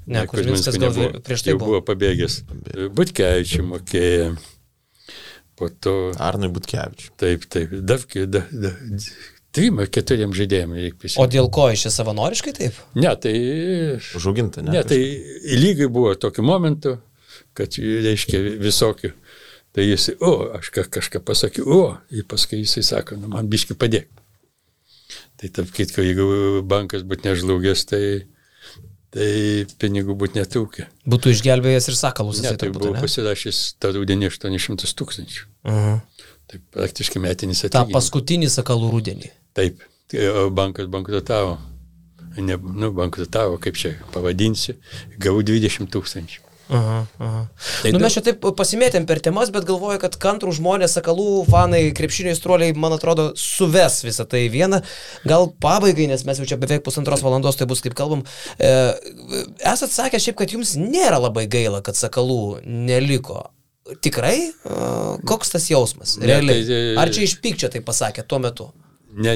Speaker 2: Ne, Kuzminskas gal prieš tai
Speaker 3: buvo pabėgęs. Butkevičiui mokėjo. Po to...
Speaker 1: Arnui Butkevičiui.
Speaker 3: Taip. 3-4 žaidėjams reikia pasirinkti.
Speaker 2: O dėl ko iš čia savanoriškai taip?
Speaker 3: Ne, tai...
Speaker 1: Užauginta, ne?
Speaker 3: Ne, tai lygiai buvo tokiu momentu, kad reiškia visokių. Tai jis, aš kažką pasakiau, ir paskui jisai sako, man biški padėk. Tai tarp kitko, jeigu bankas būtų nežlugęs, tai pinigų būtų netrūkę.
Speaker 2: Būtų išgelbėjęs ir Sakalus.
Speaker 3: Ne, tai buvo pasirašęs tą rudenį 800 000. Tai praktiškai metinis atlyginimas.
Speaker 2: Ta paskutinį Sakalų rudenį.
Speaker 3: Taip, bankas bankrutavo. Bankrutavo, kaip čia pavadinsi, gavau 20 000.
Speaker 2: Mes čia taip pasimėtėm per temas, bet galvoju, kad kantrų žmonės, Sakalų fanai, krepšinio aistruoliai, man atrodo, suves visą tai vieną. Gal pabaigai, nes mes jau čia beveik 1,5 valandos, tai bus kaip kalbam. Esat sakę šiaip, kad jums nėra labai gaila, kad Sakalų neliko. Tikrai? Koks tas jausmas? Realiai. Ar čia iš pykčio tai pasakė tuo metu?
Speaker 3: Ne,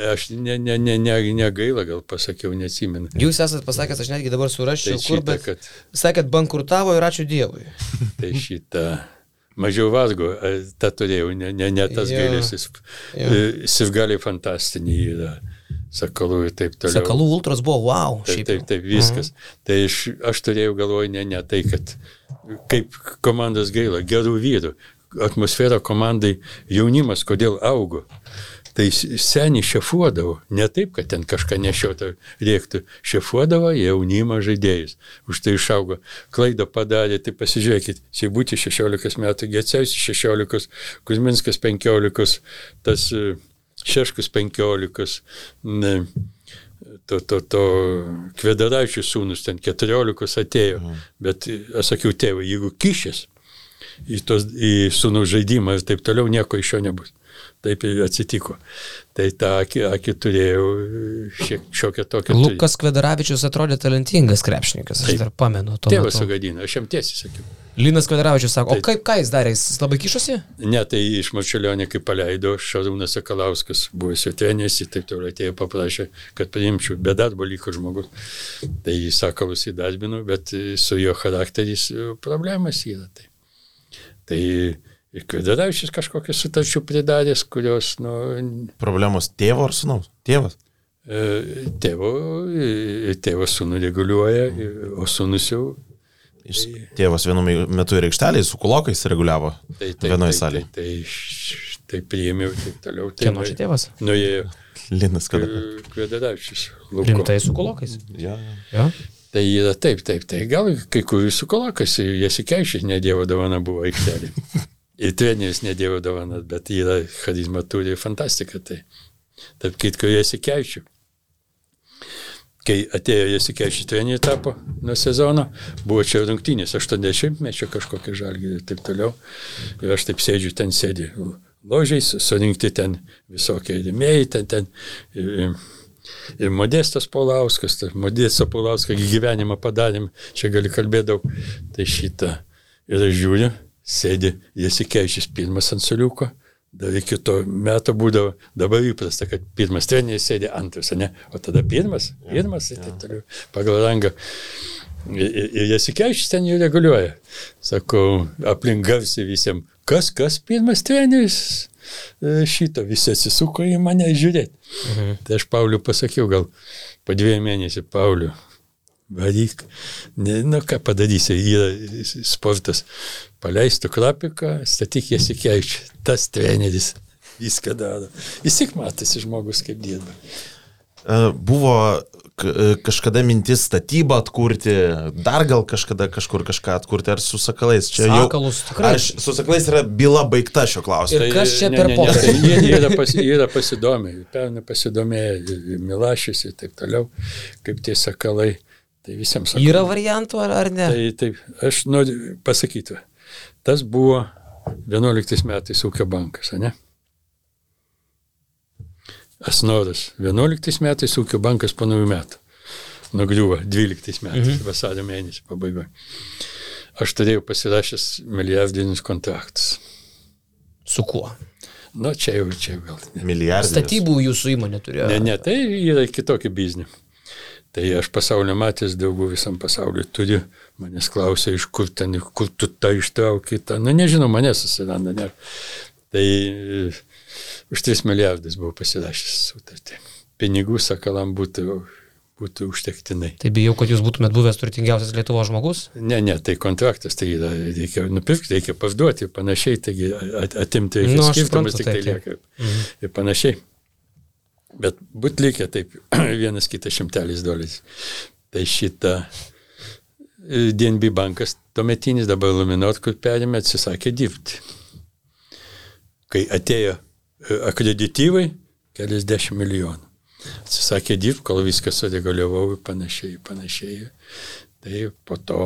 Speaker 3: aš negaila, gal pasakiau, neatsimenu.
Speaker 2: Jūs esat pasakęs, aš netgi dabar suraščiau, kur, bet sakėt, bankrutavo ir ačiū Dievui.
Speaker 3: Tai šitą mažiau vargo, tą turėjau, ne tas gailėsis. Sirgaliai fantastiniai yra, Sakalų ir taip toliau.
Speaker 2: Sakalų ultras buvo, wow.
Speaker 3: Taip, viskas. Tai aš turėjau galvoj, ne tai, kad kaip komandos gaila, gerų vyrų, atmosfera komandai, jaunimas, kodėl augo. Tai seniai šefuodavo, ne taip, kad ten kažką nešiotą rėktų, šefuodavo jaunimą žaidėjus. Už tai išaugo. Klaidą padarė, tai pasižiūrėkit, Seibutį 16 metų, Gecevičius 16, Kuzminskas 15, tas Šeškus 15, Kvedaravičius sūnus ten 14 atėjo, bet aš sakiau, tėvai, jeigu kišės į sūnų žaidimą ir taip toliau, nieko iš jo nebus. Taip ir atsitiko. Tai tą akį turėjau šiokią tokią.
Speaker 2: Lukas Kvedaravičius atrodė talentingas krepšininkas, aš dar pamenu.
Speaker 3: Tėvas sugadino, aš jam tiesiai sakiau.
Speaker 2: Linas Kvedaravičius sako, o ką jis darė, jis labai kišosi?
Speaker 3: Ne, tai iš Marčiulionio, kai paleido, Šarūnas Sakalauskas, buvęs jo treneris, taip toliau atėjo, paprašė, kad priimčiau, be darbo liko žmogus. Tai Sakalus įdarbino, bet su jo charakteris problemas yra. Tai Kvedaravičius kažkokias sutarčių pridarės, kurios,
Speaker 1: Problemos tėvo ar sūnaus? Tėvas?
Speaker 3: Tėvas sūnų reguliuoja, o sūnus jau...
Speaker 1: Tėvas vienu metu ir aikštelėje su kulokais reguliavo vienoje salėje.
Speaker 3: Tai priėmiau taip toliau.
Speaker 2: Kieno čia tėvas?
Speaker 3: Nuėjo
Speaker 1: Linas
Speaker 3: Kvedaravičius.
Speaker 2: Rimtai su kulokais?
Speaker 1: Ja.
Speaker 3: Tai yra taip. Tai gal kai kurių su kulokais, Jasikaičius nedievo dovana buvo aikštelė. Ir treneris nedievo dovana, bet yra charizma turi fantastika. Tai tarp kitko Jasikaičius. Kai atėjo Jasikaičius treneriai tapo nuo sezono, buvo čia rungtynės 80-mečio kažkokie Žalgiriai ir taip toliau. Ir aš taip sėdžiu, ten sėdė ložiais, surinkti ten visokie rėmėjai, ten ir Modestas Paulauskas, Modestą Paulauską gyvenimą padarėm, čia gali kalbėti daug. Tai šitą. Ir aš žiūriu, sėdė Jasikaičius pirmas ant suoliuko. Dar iki to meto būdavo, dabar įprasta, kad pirmas treneris sėdė antras, ne? O tada pirmas ir taip toliau, pagal rangą. Ir Jasikaičius ten jų reguliuoja. Sakau, aplink garsiai visiems, kas pirmas treneris šito, visi atsisuko į mane žiūrėti. Tai aš Pauliu pasakiau, gal po 2 mėnesių, Pauliu, varyk, ką padarysi, yra sportas, paleistų Krapiką, statyk Jasikaičių, tas treneris viską daro. Jis tik matasi žmogus, kaip dirba.
Speaker 1: Buvo kažkada mintis statybą atkurti, dar gal kažkada kažkur kažką atkurti, ar su Sakalais? Čia
Speaker 2: Sakalus tikrai.
Speaker 1: Su Sakalais yra byla baigta šio klausimo.
Speaker 2: Ir kas čia per pokalbį?
Speaker 3: Jie yra pasidomėję, pernai pasidomėję, Milašius ir taip toliau, kaip tie Sakalai. Tai visiems sakau.
Speaker 2: Yra variantų ar ne?
Speaker 3: Taip, aš noriu pasakyti. Tas buvo 11 metais ūkio bankas, ne? Asnoras. 11 metais ūkio bankas po naujų metų. Nugriuvo 12 metais, vasario mėnesį pabaigoje. Aš turėjau pasirašęs milijardinius kontraktus.
Speaker 2: Su kuo?
Speaker 3: Čia jau gal.
Speaker 1: Milijardinis.
Speaker 2: Statybų jūsų įmonė turėjo?
Speaker 3: Ne, tai yra kitokį biznį. Tai aš pasaulio matęs daugų visam pasauliu turiu, manęs klausia, iš kur tu tą ištrauki, nežinau, manęs susiranda, ne. Tai už 3 milijardus buvo pasirašęs sutartį. Pinigų Sakalam būtų užtektinai.
Speaker 2: Tai bijau, kad jūs būtumėt buvęs turtingiausias Lietuvos žmogus?
Speaker 3: Ne, tai kontraktas, tai yra, reikia nupirkti, reikia parduoti, panašiai, taigi atimti reikia skirtumus, tik tai lieka ir panašiai. Bet būt likę taip, vienas kitas $100. Tai šitą DNB bankas tuometinis, dabar Luminor, kur perėmė, atsisakė dirbti. Kai atėjo akredityvai, $10 milijonų. Atsisakė dirbti, kol viską sureguliavau ir panašiai. Tai po to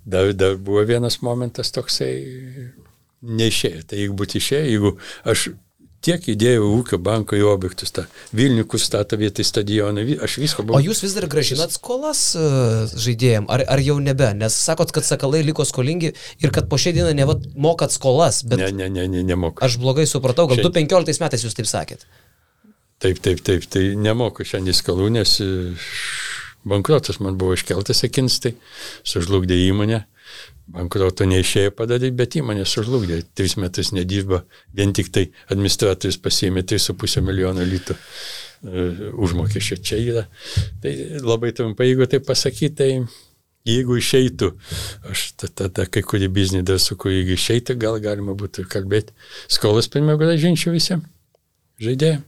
Speaker 3: dar buvo vienas momentas toksai neišėjo. Tai jeigu būtų išėjo, jeigu aš tiek įdėjau ūkio banko į objektus, Vilnių, kur stato vietoj stadioną, aš visko buvau.
Speaker 2: O jūs vis dar grąžinat skolas žaidėjim, ar jau nebe? Nes sakot, kad Sakalai liko skolingi ir kad po šią dieną mokat skolas, bet...
Speaker 3: Ne, nemoku.
Speaker 2: Aš blogai supratau, gal 2015 metais jūs taip sakėt.
Speaker 3: Taip, tai nemoku šiandien skolų, nes bankrotas man buvo iškeltas akins, tai sužlugdė įmonę. Bankroto neišėjo padaryti, bet įmonė sužlugdė. 3 metus nedirba, vien tik tai administratorius pasiėmė 3,5 milijono litų užmokesčio čia yra. Tai labai trumpai, jeigu tai pasakyti, tai jeigu išeitų, aš tada kai kurį biznį dar suku, jeigu išeitų, gal galima būtų kalbėti. Skolas pirmiau grąžinčiau visiems žaidėjams.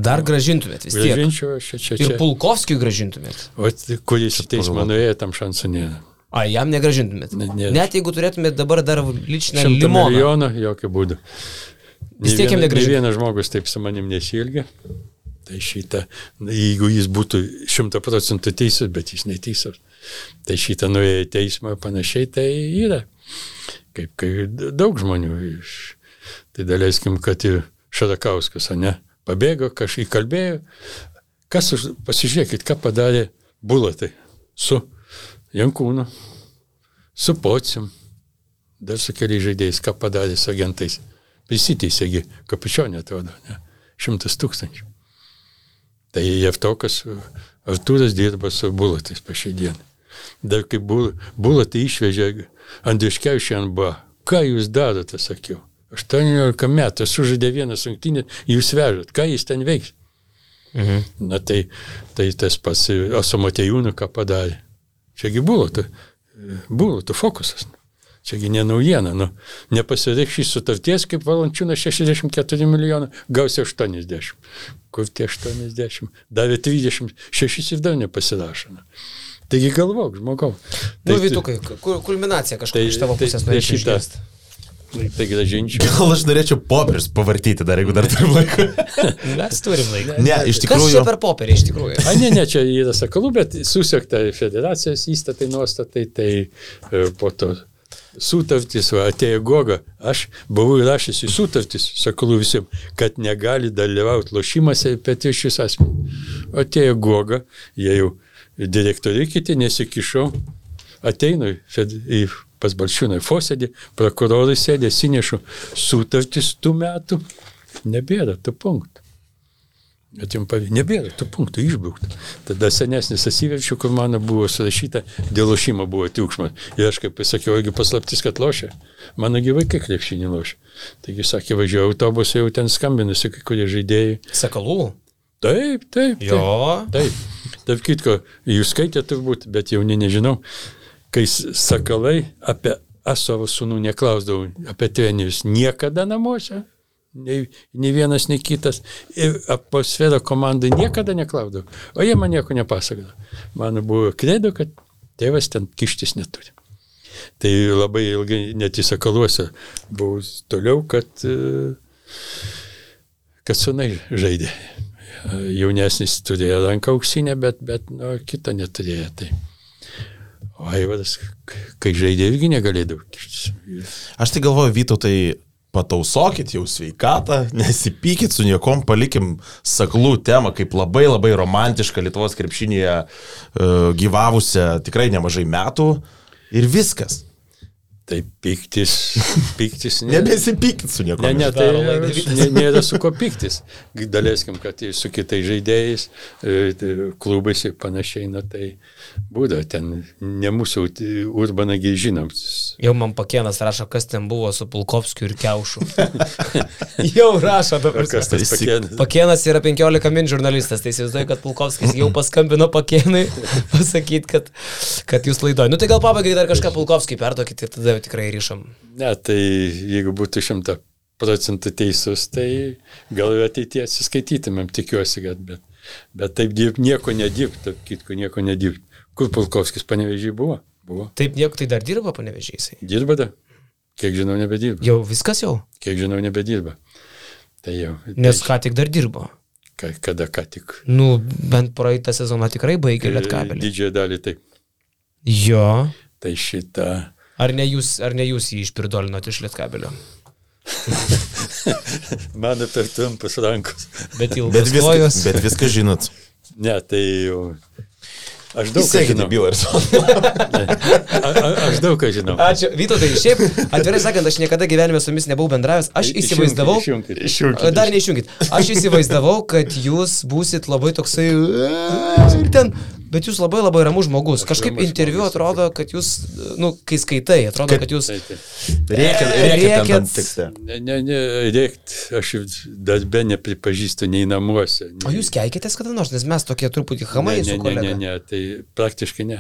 Speaker 2: Dar grąžintumėt vis tiek.
Speaker 3: Grąžinčiau aš čia.
Speaker 2: Ir Pulkovskijui grąžintumėt.
Speaker 3: O kuris į teismą nuėjo, tam šansų nėra.
Speaker 2: Jam negrąžintumėt. Net jeigu turėtumėt dabar dar ličinę
Speaker 3: 100
Speaker 2: limoną.
Speaker 3: milijonų, jokių būdų.
Speaker 2: Vis tiek jam negrąžintumėt.
Speaker 3: Ne vienas žmogus taip su manim nesiilgia. Tai šitą, jeigu jis būtų 100% teisus, bet jis neteisus, tai šitą nuėjo į teismą panašiai, tai yra. Kaip daug žmonių. Tai daleiskim, kad ir Šarakauskas, ne, pabėgo, kažkaip kalbėjo. Pasižiūrėkit, ką padarė Bulatai su Jankūnu, su Pocium, dar su keliais žaidėjais, ką padarė su agentais. Prisiteisėgi, Kapučionė atrodo, ne, 100 000. Tai Jevtokas Artūras dirba su Bulatais po šiai dieną. Dar kaip Bulatai išvežė Andriuškevičių NBA, ką jūs darote, sakiau. 18 metų, sužaidė vieną rungtynę, jūs vežat, ką jis ten veiks? Na tai tas pats Asamotejūnų ką padarė. Čiagi Bulatų fokusas. Čiagi ne naujiena. Nepasireikš šį sutarties, kaip Valančiūnas 64 milijonų, gausi 80. Kur tie 80? Davė 36 ir dar nepasirašo. Taigi galvok, žmogau.
Speaker 2: Vytukai, kulminacija kažkokia iš tavo pusės norėčiau išgirsti.
Speaker 3: Tai gražinčiau.
Speaker 1: Gal aš norėčiau popierius pavartyti dar, jeigu dar turim laiką.
Speaker 2: Mes turim laiką.
Speaker 1: Ne, iš tikrųjų.
Speaker 2: Kas čia per popierį iš tikrųjų?
Speaker 3: Ne, čia yra Sakalų, bet susiekta federacijos įstatai, nuostatai, tai po to sutartis, atėjo Goga. Aš buvau įrašęs į sutartis, Sakalų visiems, kad negali dalyvauti lošimuose petišius asmenys. Atėjo Goga, jie jau direktoriai kiti nesikišau, ateinu į pas Balčiūną į posėdį, prokurorai sėdė, sinešu sutartis tų metų, nebėra tų punktų. Nebėra tų punktų, išbraukta. Tada senesnis atsiverčiu, kur mano buvo surašyta, dėl lošimo buvo triukšmas. Ir aš kaip pasakiau, jeigu paslaptis, kad lošia, mano gi vaikai krepšinį lošia. Taigi sakė, važiuoju autobusą, jau ten skambinusi kai kurie žaidėjai.
Speaker 2: Sakalų?
Speaker 3: Taip.
Speaker 2: Jo.
Speaker 3: Taip. Taip kitko, jūs skaitėte turbūt, bet jauni nežinau. Kai Sakalai apie savo sūnų neklausdavau, apie trenerius niekada namuose, nei vienas, nei kitas, ir atmosfera komandai niekada neklausdavau, o jie man nieko nepasakodavo. Man buvo kredo, kad tėvas ten kištis neturi. Tai labai ilgai net į Sakaluose buvau toliau, kad sūnai žaidė. Jaunesnis turėjo ranką auksinę, bet kitą neturėjo. Tai. O Aivaras, kai žaidė, irgi negalėdavo kištis.
Speaker 1: Aš tai galvoju, Vytautai, patausokit jau sveikatą, nesipykit su niekom, palikim Sakalų temą kaip labai labai romantišką Lietuvos krepšinėje gyvavusią tikrai nemažai metų ir viskas.
Speaker 3: Tai piktis.
Speaker 1: Nebesipykit su niekom.
Speaker 3: Ne, tai nėra su ko piktis. Daleiskim, kad su kitais žaidėjais, klubais ir panašiai, tai būda ten, ne mūsų Urbanagi žinom.
Speaker 2: Jau man Pakėnas rašo, kas ten buvo su Pulkovskiu ir Kiaušu. Jau rašo dabar.
Speaker 3: Kas tas Pakėnas?
Speaker 2: Pakėnas yra 15 min žurnalistas, tai įsivaizduoju, kad Pulkovskis jau paskambino Pakėnui pasakyti, kad jūs laidoju. Tai gal pabaigai dar kažką Pulkovskį perduokit ir tada tikrai ryšam.
Speaker 3: Ne, tai jeigu būtų 100% teisus, tai gal ateityje atsiskaitytumėm, tikiuosi, bet taip nieko nedirbt, taip kitko nieko nedirbt. Kur Pulkovskis Panevėžyje buvo?
Speaker 2: Taip nieko, tai dar dirba Panevėžyje?
Speaker 3: Dirba da? Kiek žinau, nebedirba.
Speaker 2: Jau viskas jau?
Speaker 3: Kiek žinau, nebedirba. Tai jau.
Speaker 2: Nes ką tik dar dirbo?
Speaker 3: Kada ką tik?
Speaker 2: Bent praeitą sezoną tikrai baigė Lietkabelį.
Speaker 3: Didžiąją dalį taip.
Speaker 2: Jo.
Speaker 3: Tai šitą.
Speaker 2: Ar ne jūs jį išpirdolinot iš Lietkabelio?
Speaker 3: Mano per trumpas rankos.
Speaker 2: Bet ilgas.
Speaker 1: Bet viską žinot.
Speaker 3: Ne, tai jau. Aš daug ką žinau. Aš daug ką žinau.
Speaker 2: Ačiū. Vytautai, šiaip, atvirai sakant, aš niekada gyvenime su jumis nebuvau bendravęs. Aš įsivaizdavau. Dar neišjunkit. Aš įsivaizdavau, kad jūs būsit labai toksai ir ten. Bet jūs labai labai ramus žmogus. Kažkaip interviu atrodo, kad jūs, kai skaitai, atrodo, kad jūs
Speaker 1: rėkiat ant tekste.
Speaker 3: Ne, rėkt, aš darbe nepripažįstu nei namuose.
Speaker 2: O jūs keikitės kada nors, nes mes tokie truputį hamai su kolega.
Speaker 3: Ne, tai praktiškai ne.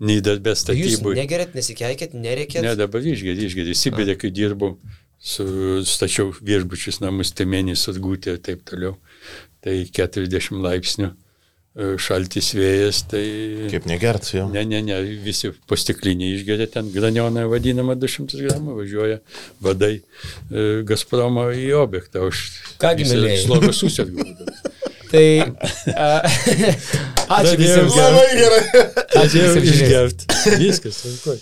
Speaker 3: Nei darbe statybų.
Speaker 2: Jūs negerėt, nesikeikėt, nerėkėt?
Speaker 3: Ne, dabar išgerė. Sibirė, kai dirbau, stačiau viešbučius namus, Temenį, Surgutė ir taip toliau. Tai 40 laipsnių. Šaltis vėjas, tai...
Speaker 1: Kaip negert, jo?
Speaker 3: Ne, visi po stiklinį išgeria, ten granioną vadinama 200 gramų, važiuoja vadai Gazpromo į objektą.
Speaker 2: Kągi, mėlėjai?
Speaker 3: Slogas susėdgų.
Speaker 2: Tai... Ačiū visiems.
Speaker 1: Labai gerai.
Speaker 2: Ačiū visiems
Speaker 3: išgerti. Viskas, sunku.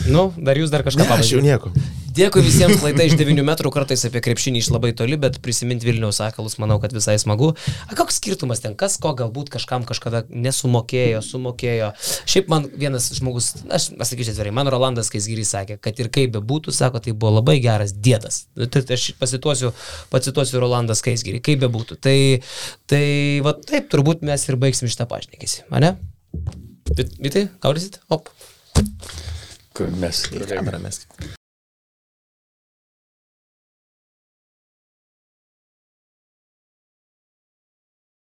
Speaker 2: Nu, dar jūs dar kažką
Speaker 1: Aš jau nieko.
Speaker 2: Dėkui visiems, laida iš 9 metrų, kartais apie krepšinį iš labai toli, bet prisiminti Vilniaus Sakalus, manau, kad visai smagu. Koks skirtumas ten, kas ko galbūt kažkam kažkada nesumokėjo, sumokėjo. Šiaip man vienas žmogus, aš pasakyčiau atvirai, man Rolandas Skaisgirys sakė, kad ir kaip bebūtų, sako, tai buvo labai geras dėdas. Tai aš pacituosiu Rolandą Skaisgirį, kaip bebūtų. Tai va taip, turbūt mes ir baigsim šitą pašnekėsi, ane? Vytai, gaudysit? Op.
Speaker 3: Kur mes.
Speaker 1: Kamerą mes.